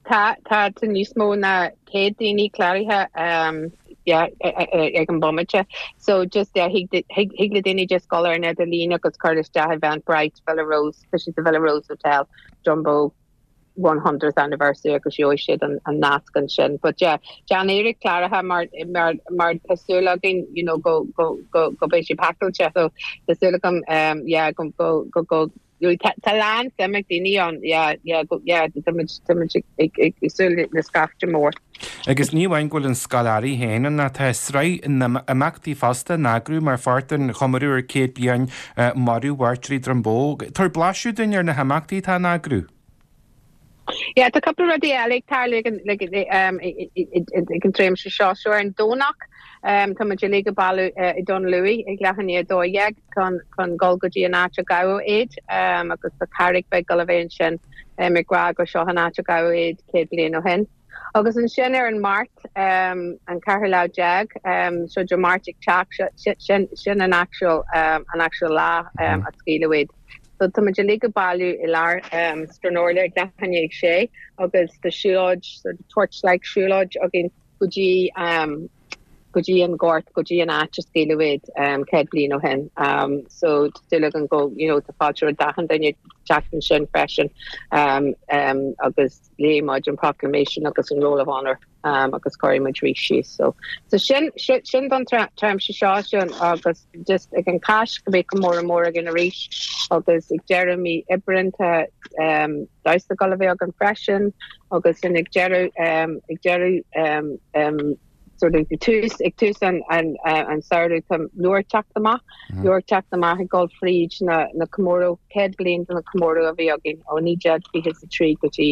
Tá, tá, tá níos mó ná 100 daoine cláraithe yeah, ag an bomaite. So just yeah, thig thig le daoine just dul ar an idirlíon agus cur isteach Eventbrite, Villa Rose, tá sé sa Villa Rose Hotel, Drumboe 100th anniversary agus gheobhaidh siad an, an nasc ansin. But yeah, déan iarracht cláraithe mar, mar, mar tá súil againn you know, go, go, go, go beidh sé pacáilte. So tá súil agam um, yeah, go, go, go, go Tá a lán suim ag daoine ann, yeah, yeah, yeah, tá muid, tá muid ag, ag, ag súil le scaifte mór. Agus ní amháin go bhfuil an Scoil Earraigh féin ann ach tá sraith imeachtaí fosta in eagrú mar pháirt den chomóradh ar 100 bliain marú Mhairtéirí Droim Bó. Tabhair blaiseadh dúinn ar na himeachtaí atá in eagrú. Yeah, tá cúpla rudaí eile ag tarlú ag an, ag, ag an tréimhse seo. So ar an Domhnach, tá muid uilig ag bailiú i Dún Lúiche ag leath i ndiaidh 12 chun, chun dul go dtí an áit a gabhadh iad agus tá carraig bheag ag dul a bheith ansin ag rá gur seo an áit a gabhadh iad 100 bliain ó shin. Agus ansin ar an Máirt, an ceathrú lá déag, so Dé Máirt ag teacht, sin, sin an actual, an actual lá a scaoileadh iad. So tá muid uilig ag bailiú i lár Stranorlar ag leath i ndiaidh a sé agus tá siúlóid, sort of torchlight siúlóid againn go dtí go dtí an gort, go dtí an áit a scaoileadh iad 100 bliain ó shin. So tá súil againn go, you know, tá fáilte roimh achan duine teacht ansin freisin agus léifidh muid an proclamation agus an roll of honour agus cuirfidh muid rís síos. So, so sin, sin don tréimhse seo sin agus just ag an Cháisc go mbeidh comóradh mór againn arís agus ag deireadh mí Aibreáin tá um, damhsa ag dul a bheith againn freisin agus sin ag deireadh um, ag deireadh um, um, sort of tús ag tús an an an samhradh tá leabhar teacht amach leabhar teacht amach ag dul fríd na na comóradh 100 bliain de na comóradh a bhí againn ó 1923 go dtí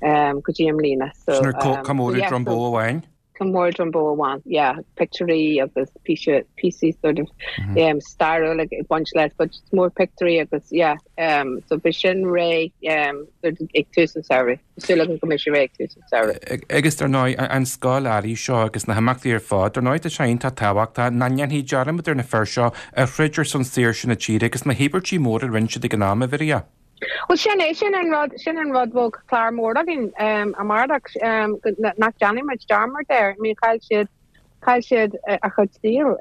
um, go dtí i mbliana so Sin ar um, comóradh yeah, Droim Bó amháin? Comóradh Droim Bó amháin yeah pictiúirí agus píosa píosaí sort of um, stairiúil ag baint leis but it's more pictiúirí agus yeah um, so beidh sin réidh um, sort of ag tús an samhradh. Súil agam go mbeidh sé réidh ag tús an tsamhraidh. Agus dar ndóigh, an scoil earraigh seo agus na himeachtaí ar fad, dar ndóigh tá sé iontach tábhachtach nach ndéanfaí dearmad ar na fir seo a throid ar son saoirse na tíre agus na híobairtí móra a rinne siad ag an am, a Mharia. Bhuel sin é, sin an rud, sin an rud bhfuil clár mór againn amárach, nach déanfaidh muid dearmad air. I mean chaill siad, chaill siad a chuid saoil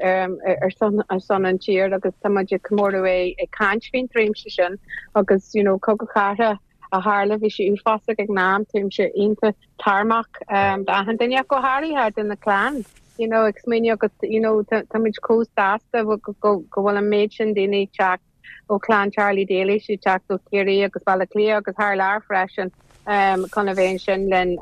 ar son, ar son an tír agus tá muid ag comóradh é ag caint faoin tréimhse sin agus you know cogadh cathartha. a tharla, bhí sé uafásach ag an am, táimse iontach tairmeach d'achan duine ach go háirithe do na clann, you know, ag smaoineamh agus, you know, táimid chomh sásta go bhfuil an méid sin daoine ag teacht ó chlann Charlie Daly, siad ag teacht ó Chiarraí agus Baile Átha Cliath agus thar lear freisin chun a bheith ansin linn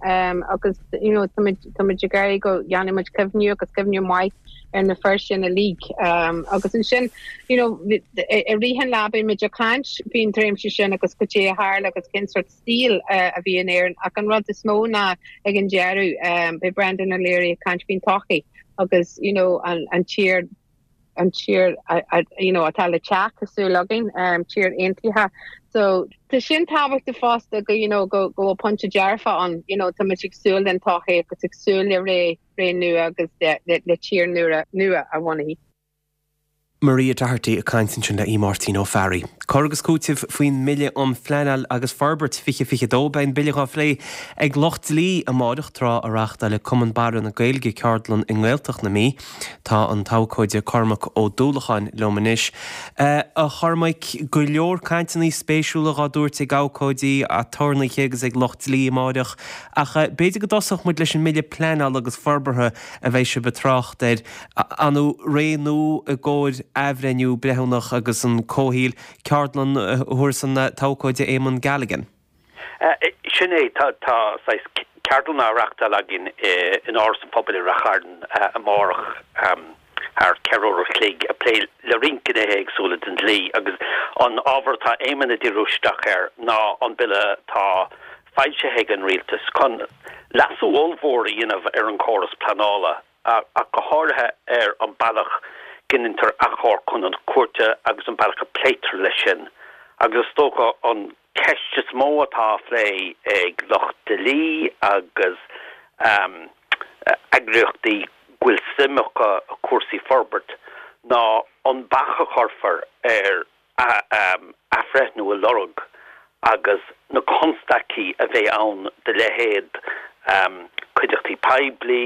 agus, you know, táimid táimid ag iarraidh go dhéanfaidh muid cuimhniú agus cuimhniú maith ar na fir sin uilig. Agus ansin, you know, i rith an lá beidh muid ag caint faoin tréimhse sin agus cad é a tharla agus cén sórt saoil a bhí in Éirinn ach an rud is mó ná ag an deireadh beidh Brendan O'Leary ag caint faoin todhchaí agus you know an tír an tír you know atá le teacht tá súil againn tír aontaithe so tá sin tábhachtach fosta go you know go go bhfuil pointe dearfa ann you know tá muid ag súil den todhchaí agus ag súil le ré ré nua agus le le tír nua nua a bhunú. Maria Doherty ag caint ansin le Aodh Máirtín Ó Fearraigh. Cur agus cúiteamh faoin mBille um Phleanáil agus Forbairt 2022. Beidh an Bille dhá phlé ag lucht dlí amáireach tráth a reáchtáilfidh Cumann Barra na Gaeilge ceardlann i nGaeltacht na Mí. Tá an t-abhcóide Cormac Ó Dúlacháin liom anois. A Chormaic, go leor cainteanna spéisiúla dhá dtabhairt ag abhcóidí, aturnaetha agus ag lucht dlí amáireach ach b'fhéidir go dtosódh muid leis an mBille Pleanála agus Forbartha a bheidh sibh ag trácht air. Ar ndóigh, ré nua i gcomhair athbhreithniú breithiúnach agus an comhshaoil, ceardlann a thabharfas an t-abhcóide Éamonn Galligan. Sin é, tá saghas ceardlann á reachtáil againn in Áras an Phobail i Rath Chairn amárach thar cheithre uair a chloig ag plé le roinnt gnéithe éagsúla den dlí agus an ábhar atá Éamonn ag díriú isteach air ná an bille atá foilsithe ag an rialtas chun leasú ollmhór a dhéanamh ar an chóras pleanála. ach go háirithe ar an bealach go ndeintear achomharc chun an chúirte agus an bealach a pléitear leis sin. Agus is dócha an ceist is mó atá á phlé ag lucht dlí agus eagraíochtaí go bhfuil suim acu i cúrsaí forbairt ná an bac a chuirfear ar athbhreithniú a lorg agus na constaicí a bheidh ann do leithéid cuideachtaí poiblí,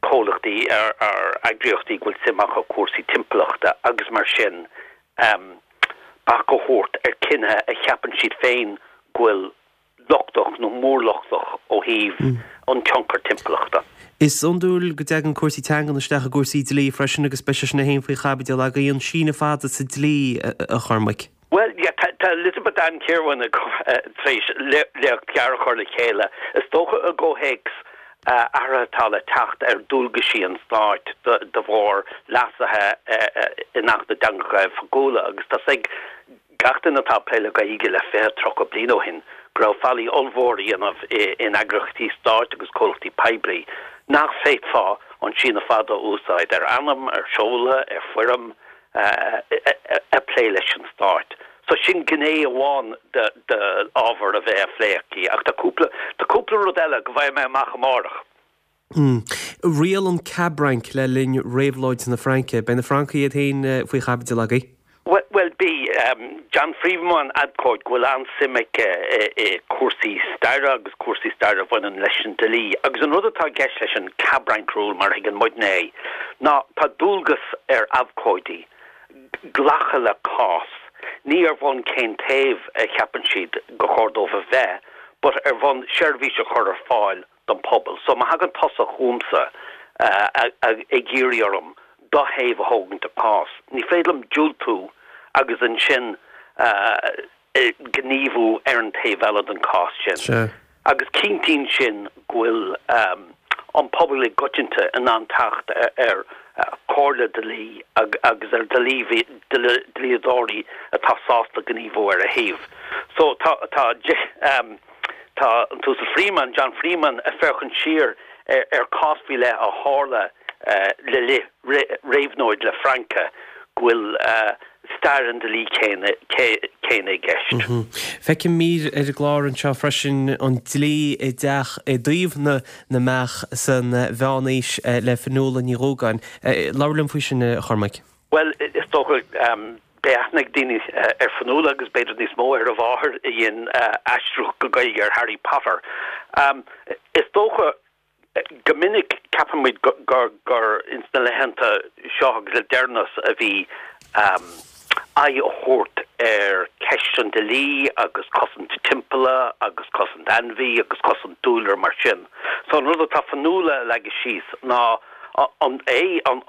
comhlachtaí ar eagraíochtaí go bhfuil suim acu i cúrsaí timpeallachta agus mar sin, bac a thabhairt ar chinnithe a cheapann siad féin go bhfuil lochtach nó mórlochtach ó thaobh an tionchar timpeallachta. Is iondúil go dtagann cúrsaí teangan isteach i gcúrsaí dlí freisin agus beidh sé sin féin faoi chaibidil agaibh, an síneadh fada sa dlí, a Chormaic. Bhuel, yeah, tá Elizabeth Ann Kirwan tar éis léacht ghearr a chur le chéile, is dócha i gcomhthéacs athruithe atá le teacht ar dualgaisí an stáit de bharr leasuithe in Acht na dTeangacha Oifigiúla agus tá 's ag Gach duine atá ag plé le Gaeilge le 20, 30 bliain ó shin go raibh faillí ollmhór á dhéanamh in eagraíochtaí stáit agus comhlachtaí poiblí nach bhféadfá an síneadh fada a úsáid ar ainm, ar seoladh, ar foirm ag plé leis an stát. So sin gné amháin de ábhar a bheidh á phlé aici ach tá cúpla, tá cúpla rud eile go bhfaighidh mé amach amárach. Riail an Cab Rank le linn Réabhlóid na Fraince. Beidh na Francaigh iad féin faoi chaibidil agaibh. Bhuel, beidh. John Freeman, abhcóide go bhfuil an-suim aige i cúrsaí staire agus cúrsaí staire a bhaineann leis an dlí. Agus an rud atá i gceist leis an Cab Rank Rule, mar a thuigeann muidne é, ná tá dualgas ar abhcóidí glacadh le cás, ní ar bhonn cén taobh a cheapann siad gur chóir dóibh a bheith, but ar bhonn seirbhís a chur ar fáil don phobal. So má thagann tusa chugamsa ag iarraidh orm do thaobh a thógaint i gcás, ní féidir liom diúltú agus ansin gníomhú ar an taobh eile den chás sin. Agus cinntíonn sin go bhfuil an pobal i gcoitinne in ann teacht ar chomhairle dlí agus ar dhlíodóirí atá sásta gníomhú ar a thaobh. So tá tá Tá an tUasal Freeman, John Freeman, ag féachaint siar ar chás faoi leith a tharla le linn réabhlóid na Fraince, go bhfuil stair an dlí céanna i gceist. Feicim mír ar an gclár anseo freisin, an dlí i dteach i dtaobh na na mbeach san Mheánaois le Fionnuala Ní Dhúgáin. Labhair liom faoi sin, a Chormaic. Bhuel, is dócha, beidh aithne ag daoine ar Fionnuala agus b'fhéidir níos mó ar a mháthair a dhein aistriú go Gaeilge ar Harry Potter. Is dócha, go minic ceapann muid gur ins na laethanta seo agus le deireanas a bhí. Aghaidh a thabhairt ar cheist an dlí agus cosaint timpealla agus cosaint ainmhí agus cosaint dúlra mar sin. So an rud atá Fionnuala a leagadh síos ná an é an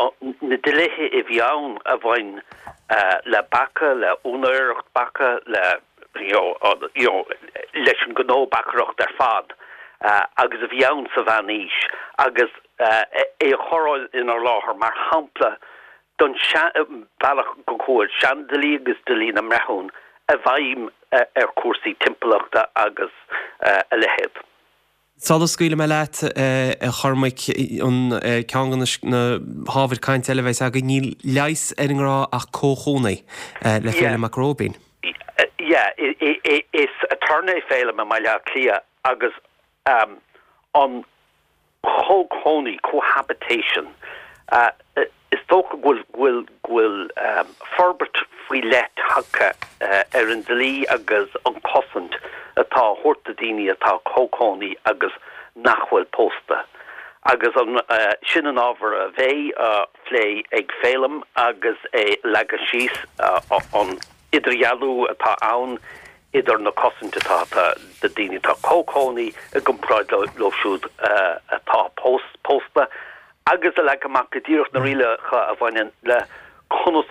na dlíthe a bhí ann a bhain le beacha, le úinéireacht beacha, le you know you know leis an gnó beachaireacht ar fad agus a bhí ann sa mheánaois agus é a chur inár láthair mar shampla don bealach go bhfuil seandlí agus dlí na mbreithiún i bhfeidhm ar chúrsaí timpeallachta agus a leithéid. Sula scaoilfidh mé leat, a Chormaic, an ceann de na hábhair cainte eile a bheas againn, níl leigheas ar an ngrá ach comhchónaí, le Féilim Mac Róibín. Yeah, is aturnae é Féilim i mBaile Átha Cliath agus an chomhchónaí, cohabitation, is dócha go bhfuil, go bhfuil forbairt faoi leith tagtha ar an dlí agus an cosaint atá á thabhairt do daoine atá comhchónaí agus nach bhfuil pósta. Agus an, sin an ábhar a bheidh á phlé ag Féilim agus é leagadh síos an idirdhealú atá ann idir na cosaint atá do daoine atá comhchónaí i gcomparáid leo siúd atá pósta agus a leagadh amach go díreach na rialacha a bhaineann le conas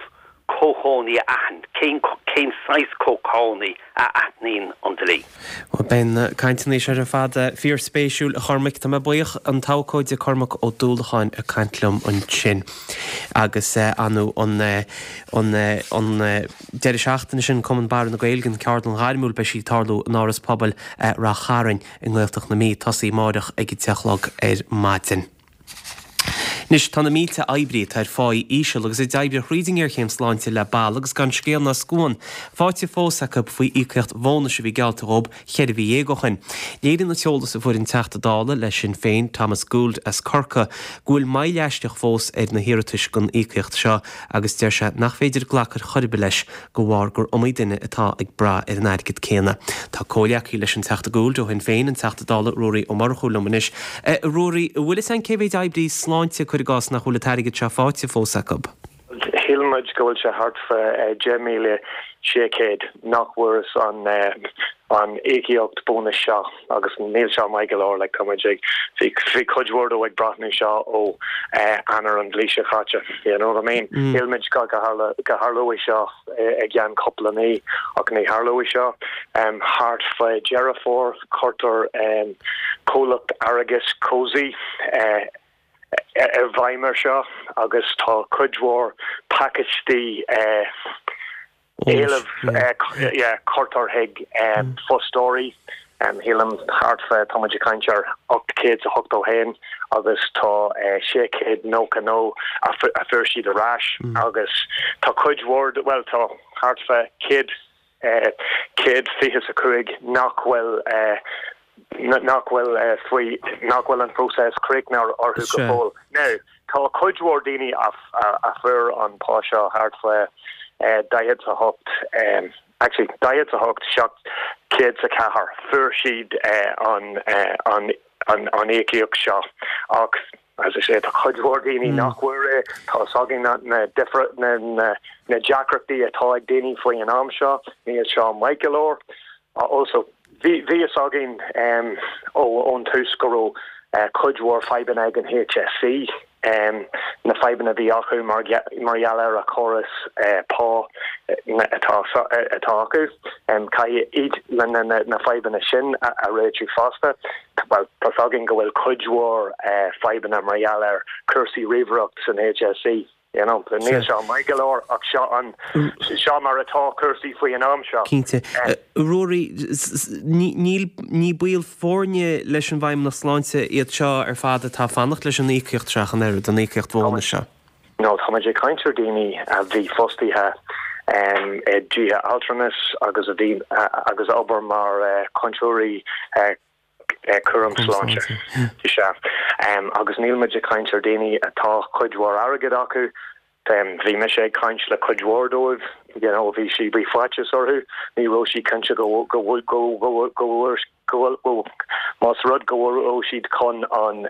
comhchónaí a aithint, cén cén saghas comhchónaí a aithníonn an dlí. Bhuel, beidh na cainteanna seo ar fad fíorspéisiúil, a Chormaic. Tá mé buíoch. An t-abhcóide Cormac Ó Dúlacháin ag caint liom ansin agus anu an an an deireadh seachtaine sin, Cumann Barra na Gaeilge, an Ceardlann Ghairmiúil, beidh sí ag tarlú in Áras Pobail Rath Chairn i nGaeltacht na Mí, tosaí amáireach ag a 10 a chlog ar maidin. Anois, tá na mílte oibrí atá ar pháí íseal agus a d'oibrigh thríd an ngéarchéim sláinte le bail agus gan scéal ná scuan faighte fós acu faoi íocaíocht bhónais a bhí geallta dhóibh cheithre mhí dhéag ó shin. Léiríonn an t-eolas a fuair an Teachta Dála le Sinn Féin, Thomas Gould as Corcaigh, go bhfuil moill aisteach fós ar na hiarratais don íocaíocht seo agus deir sé nach féidir glacadh ar chor ar bith leis de bharr gur iomaí duine atá ag brath ar an airgead céanna. Tá comhghleacaí leis an Teachta Gould ó Shinn Féin, an Teachta Dála Ruairí Ó Murchú liom anois. A Ruairí, an bhfuil fhios a'inn cé mhéid oibrí sláinte, cuir i gcás, nach bhfuil an t-airgead seo faighte fós acu? Shíl muid go bhfuil sé thart fá 10,600 nach bhfuaireas an an íocaíocht bónais seo agus níl seo maith go leor, like tá muid ag, bhí bhí cuid mhór dó ag breathnú seo ó Eanáir an bhliain seo chaite, you know what I mean? Shíl muid go go tharla go tharlóidh seo i gceann cúpla mí ach ní tharlóidh seo. Thart fá Deireadh Fómhair cuirtear comhlacht airgeadais Cosy i bhfeidhm ar seo agus tá cuid mhór pacáistí éileamh cuirtear chuig fostóirí, shílim thart fá, tá muid ag caint ar 881 agus tá 699 a fuair siad ar ais agus tá cuid mhór, bhuel tá thart fá 100, 125 nach bhfuil nach bhfuil faoi, nach bhfuil an próiseas críochnaithe orthu go fóill. Now, tá cuid mhór daoine a fuair an pá seo thart fá 48, actually 48 704, fuair siad an an an íocaíocht seo ach as I say, tá cuid mhór daoine nach bhfuair é. Tá fhios againn na na na na deacrachtaí atá ag daoine faoi an am seo, níl seo maith go leor. Also, bhí fhios againn ón tús go raibh cuid mhór fadhbanna ag an HSE, na fadhbanna a bhí acu mar gheall ar a chóras pá atá acu. Caithfidh iad na fadhbanna sin a réitiú fosta. Bhuel, tá fhios againn go bhfuil cuid mhór fadhbanna mar gheall ar chúrsaí ríomhaireacht san HSE. You know, níl seo maith go leor ach seo an, seo mar atá cúrsaí faoi an am seo. Cinnte. Ruairí, níl, ní baill foirne leis an bhFeidhmeannacht Sláinte iad seo ar fad atá ag fanacht leis an íocaíocht seo ach an oiread, an íocaíocht bhónais seo. No, tá muid ag caint ar daoine a bhí fostaithe i dtithe altranais agus a bhí, agus a obair mar chúntóirí cúram sláinte. Sea. Agus níl muid ag caint ar daoine atá cuid mhór airgid acu. Bhí mise ag caint le cuid mhór dóibh, you know, bhí sí, bhí faitíos orthu, ní raibh siad cinnte go, go, go, go, go bhfuair, go bhfuil, go, más rud go raibh siad chun an,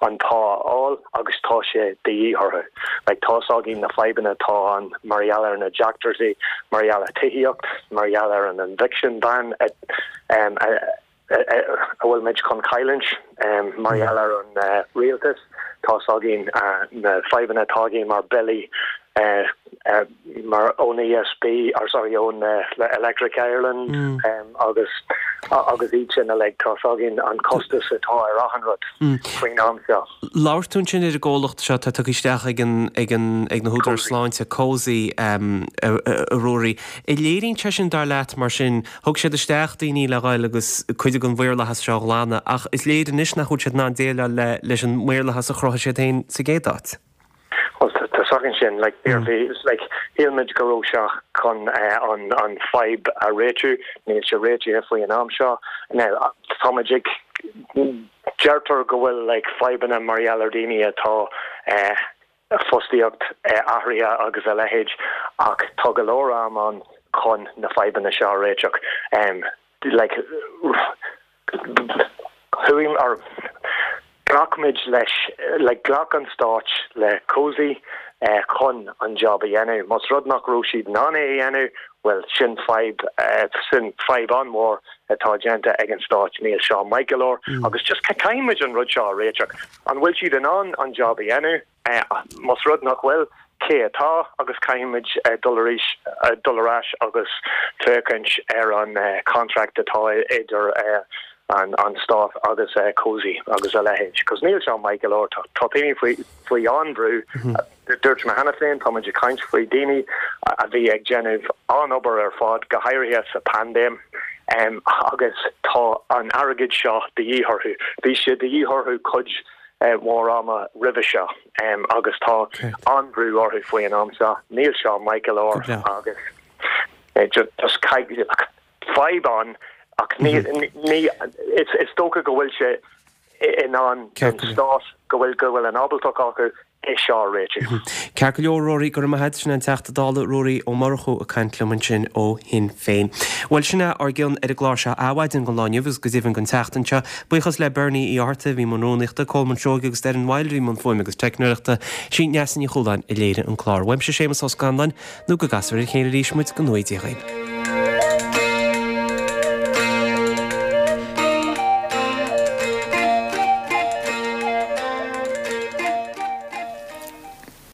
an pá a fháil agus tá sé de dhíth orthu. Like tá's againn na fadhbanna atá ann mar gheall ar na deacrachtaí, mar gheall ar tithíocht, mar gheall ar an eviction ban a, a, a bhfuil muid chun cailliúint mar gheall ar an rialtas. Tá's againn na fadhbanna atá againn mar billí mar ón ESB, or sorry, ón Electric Ireland agus agus iad sin uilig. Tá's againn an costas atá ar achan rud faoin am seo. Labhair tú ansin ar an gcomhlacht seo atá tugtha isteach ag an ag an ag na húdaráis sláinte, Cosy, a Ruairí. An léiríonn sé sin, dar leat, mar sin, Thug siad isteach daoine le dhul agus cuid den mhaorlathas seo a ghlanadh ach is léir anois nach bhfuil siad in ann déileáil le leis an maorlathas a chruthaigh siad féin sa gcéad áit. Bhuel, tá's againn sin, like, bhí, like, shíl muid go raibh sé chun an, an fadhb a réitiú, níl sé réitithe faoi an am seo. Now, tá muid ag, deirtear go bhfuil, like, fadhbanna mar gheall ar daoine atá eh, fostaíocht athraithe agus a leithéid ach tá go leor am ann chun na fadhbanna seo a réiteach. Like chuaigh or ghlac muid leis like ghlac an stáit le Cosy chun an job a dhéanamh. Más rud nach raibh siad in ann é a dhéanamh, bhuel sin fadhb sin fadhb an-mhór atá déanta ag an stáit. Níl seo maith go leor agus just caithfidh muid an rud seo a réiteach. An bhfuil siad in ann an job a dhéanamh? Más rud nach bhfuil, cé atá? Agus caithfidh muid dul arís, dul ar ais agus féachaint ar an contract atá idir an stát agus Cosy agus a leithéid. Cos níl seo maith go leor. Tá daoine faoi, faoi an-bhrú. Dúirt mé cheana féin, tá muid ag caint faoi daoine a bhí ag déanamh an-obair ar fad, go háirithe sa paindéim, agus tá an airgead seo de dhíth orthu. Bhí sé de dhíth orthu cuid mhór ama roimhe seo agus tá an-bhrú orthu faoi an am seo. Níl seo maith go leor agus just fadhb ann ach ní, is dócha go bhfuil sé in ann don stát go bhfuil go bhfuil an ábaltacht acu é seo a réitiú. Ceart go leor, Ruairí, go raibh maith agat. Sin é an Teachta Dála Ruairí Ó Murchú ag caint liom ansin ó Shinn Féin. Bhuel, sin é ár gcion ar an gclár seo Adhmhaidin don lá inniu agus go deimhin don tseachtain seo. Buíochas le Bernie Uí Fhátharta a bhí i mbun rúnaíochta, Colman Seoighe agus Doireann Wilde a bhí i mbun fuaime agus teicneoireachta. Sí Neasa Ní Chualáin a léirigh an clár. Uaimse Séamus Ó Scanláin, nó go gcasfar ar a chéile arís muid, go ngnóthaí Dia dhaoibh.